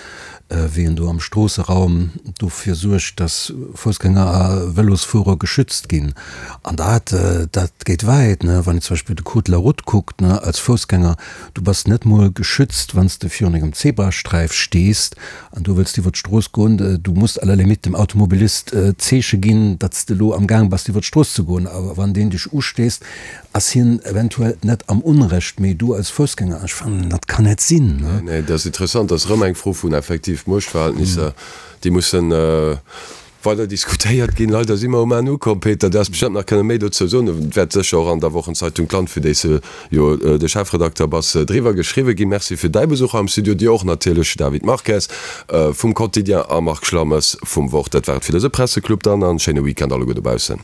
F: wéi een do am Stroosseraum dofir suergt, dass Foussgänger a Vëlosfuerer geschützt ginn. An dat, dat geet wäit, wann een zum Beispill de Code de la route kuckt, als Foussgänger, Du bass net mol geschützt, wann s de virun engem Zebrasträif stees an du wëlls iwwer d'Strooss goen. Du muss à la limite dem Automobilist d'Zeeche ginn, datt s de elo am Gaang bass iwwer d'Strooss ze goen. A wann deen dech ustéisst, ass hien eventuell net am Unrecht, mee du als Foussgänger. Ech fannen, dat kann net sinn.
C: Nee, nee, dat ass interessant. Dat ass erëm eng Fro vun effektiv Muechtverhältnisser, déi mussen Weider diskutéiert ginn. Leider si mer um Enn ukomm. Peter, du häss bestëmmt nach kënne méi dozou soen. Et wäert sécher och an der Wochenzeitung D'Land, fir déi s de jo de Chefredakter bass, driwwer geschriwwe ginn. Merci fir däi Besuch hei am Studio. Dir och natierlech, David Marques vum Quotidien a Marc Schlammes vum Wort. Dat war et fir dëse Presseclub dann an schéine Weekend alleguer dobaussen.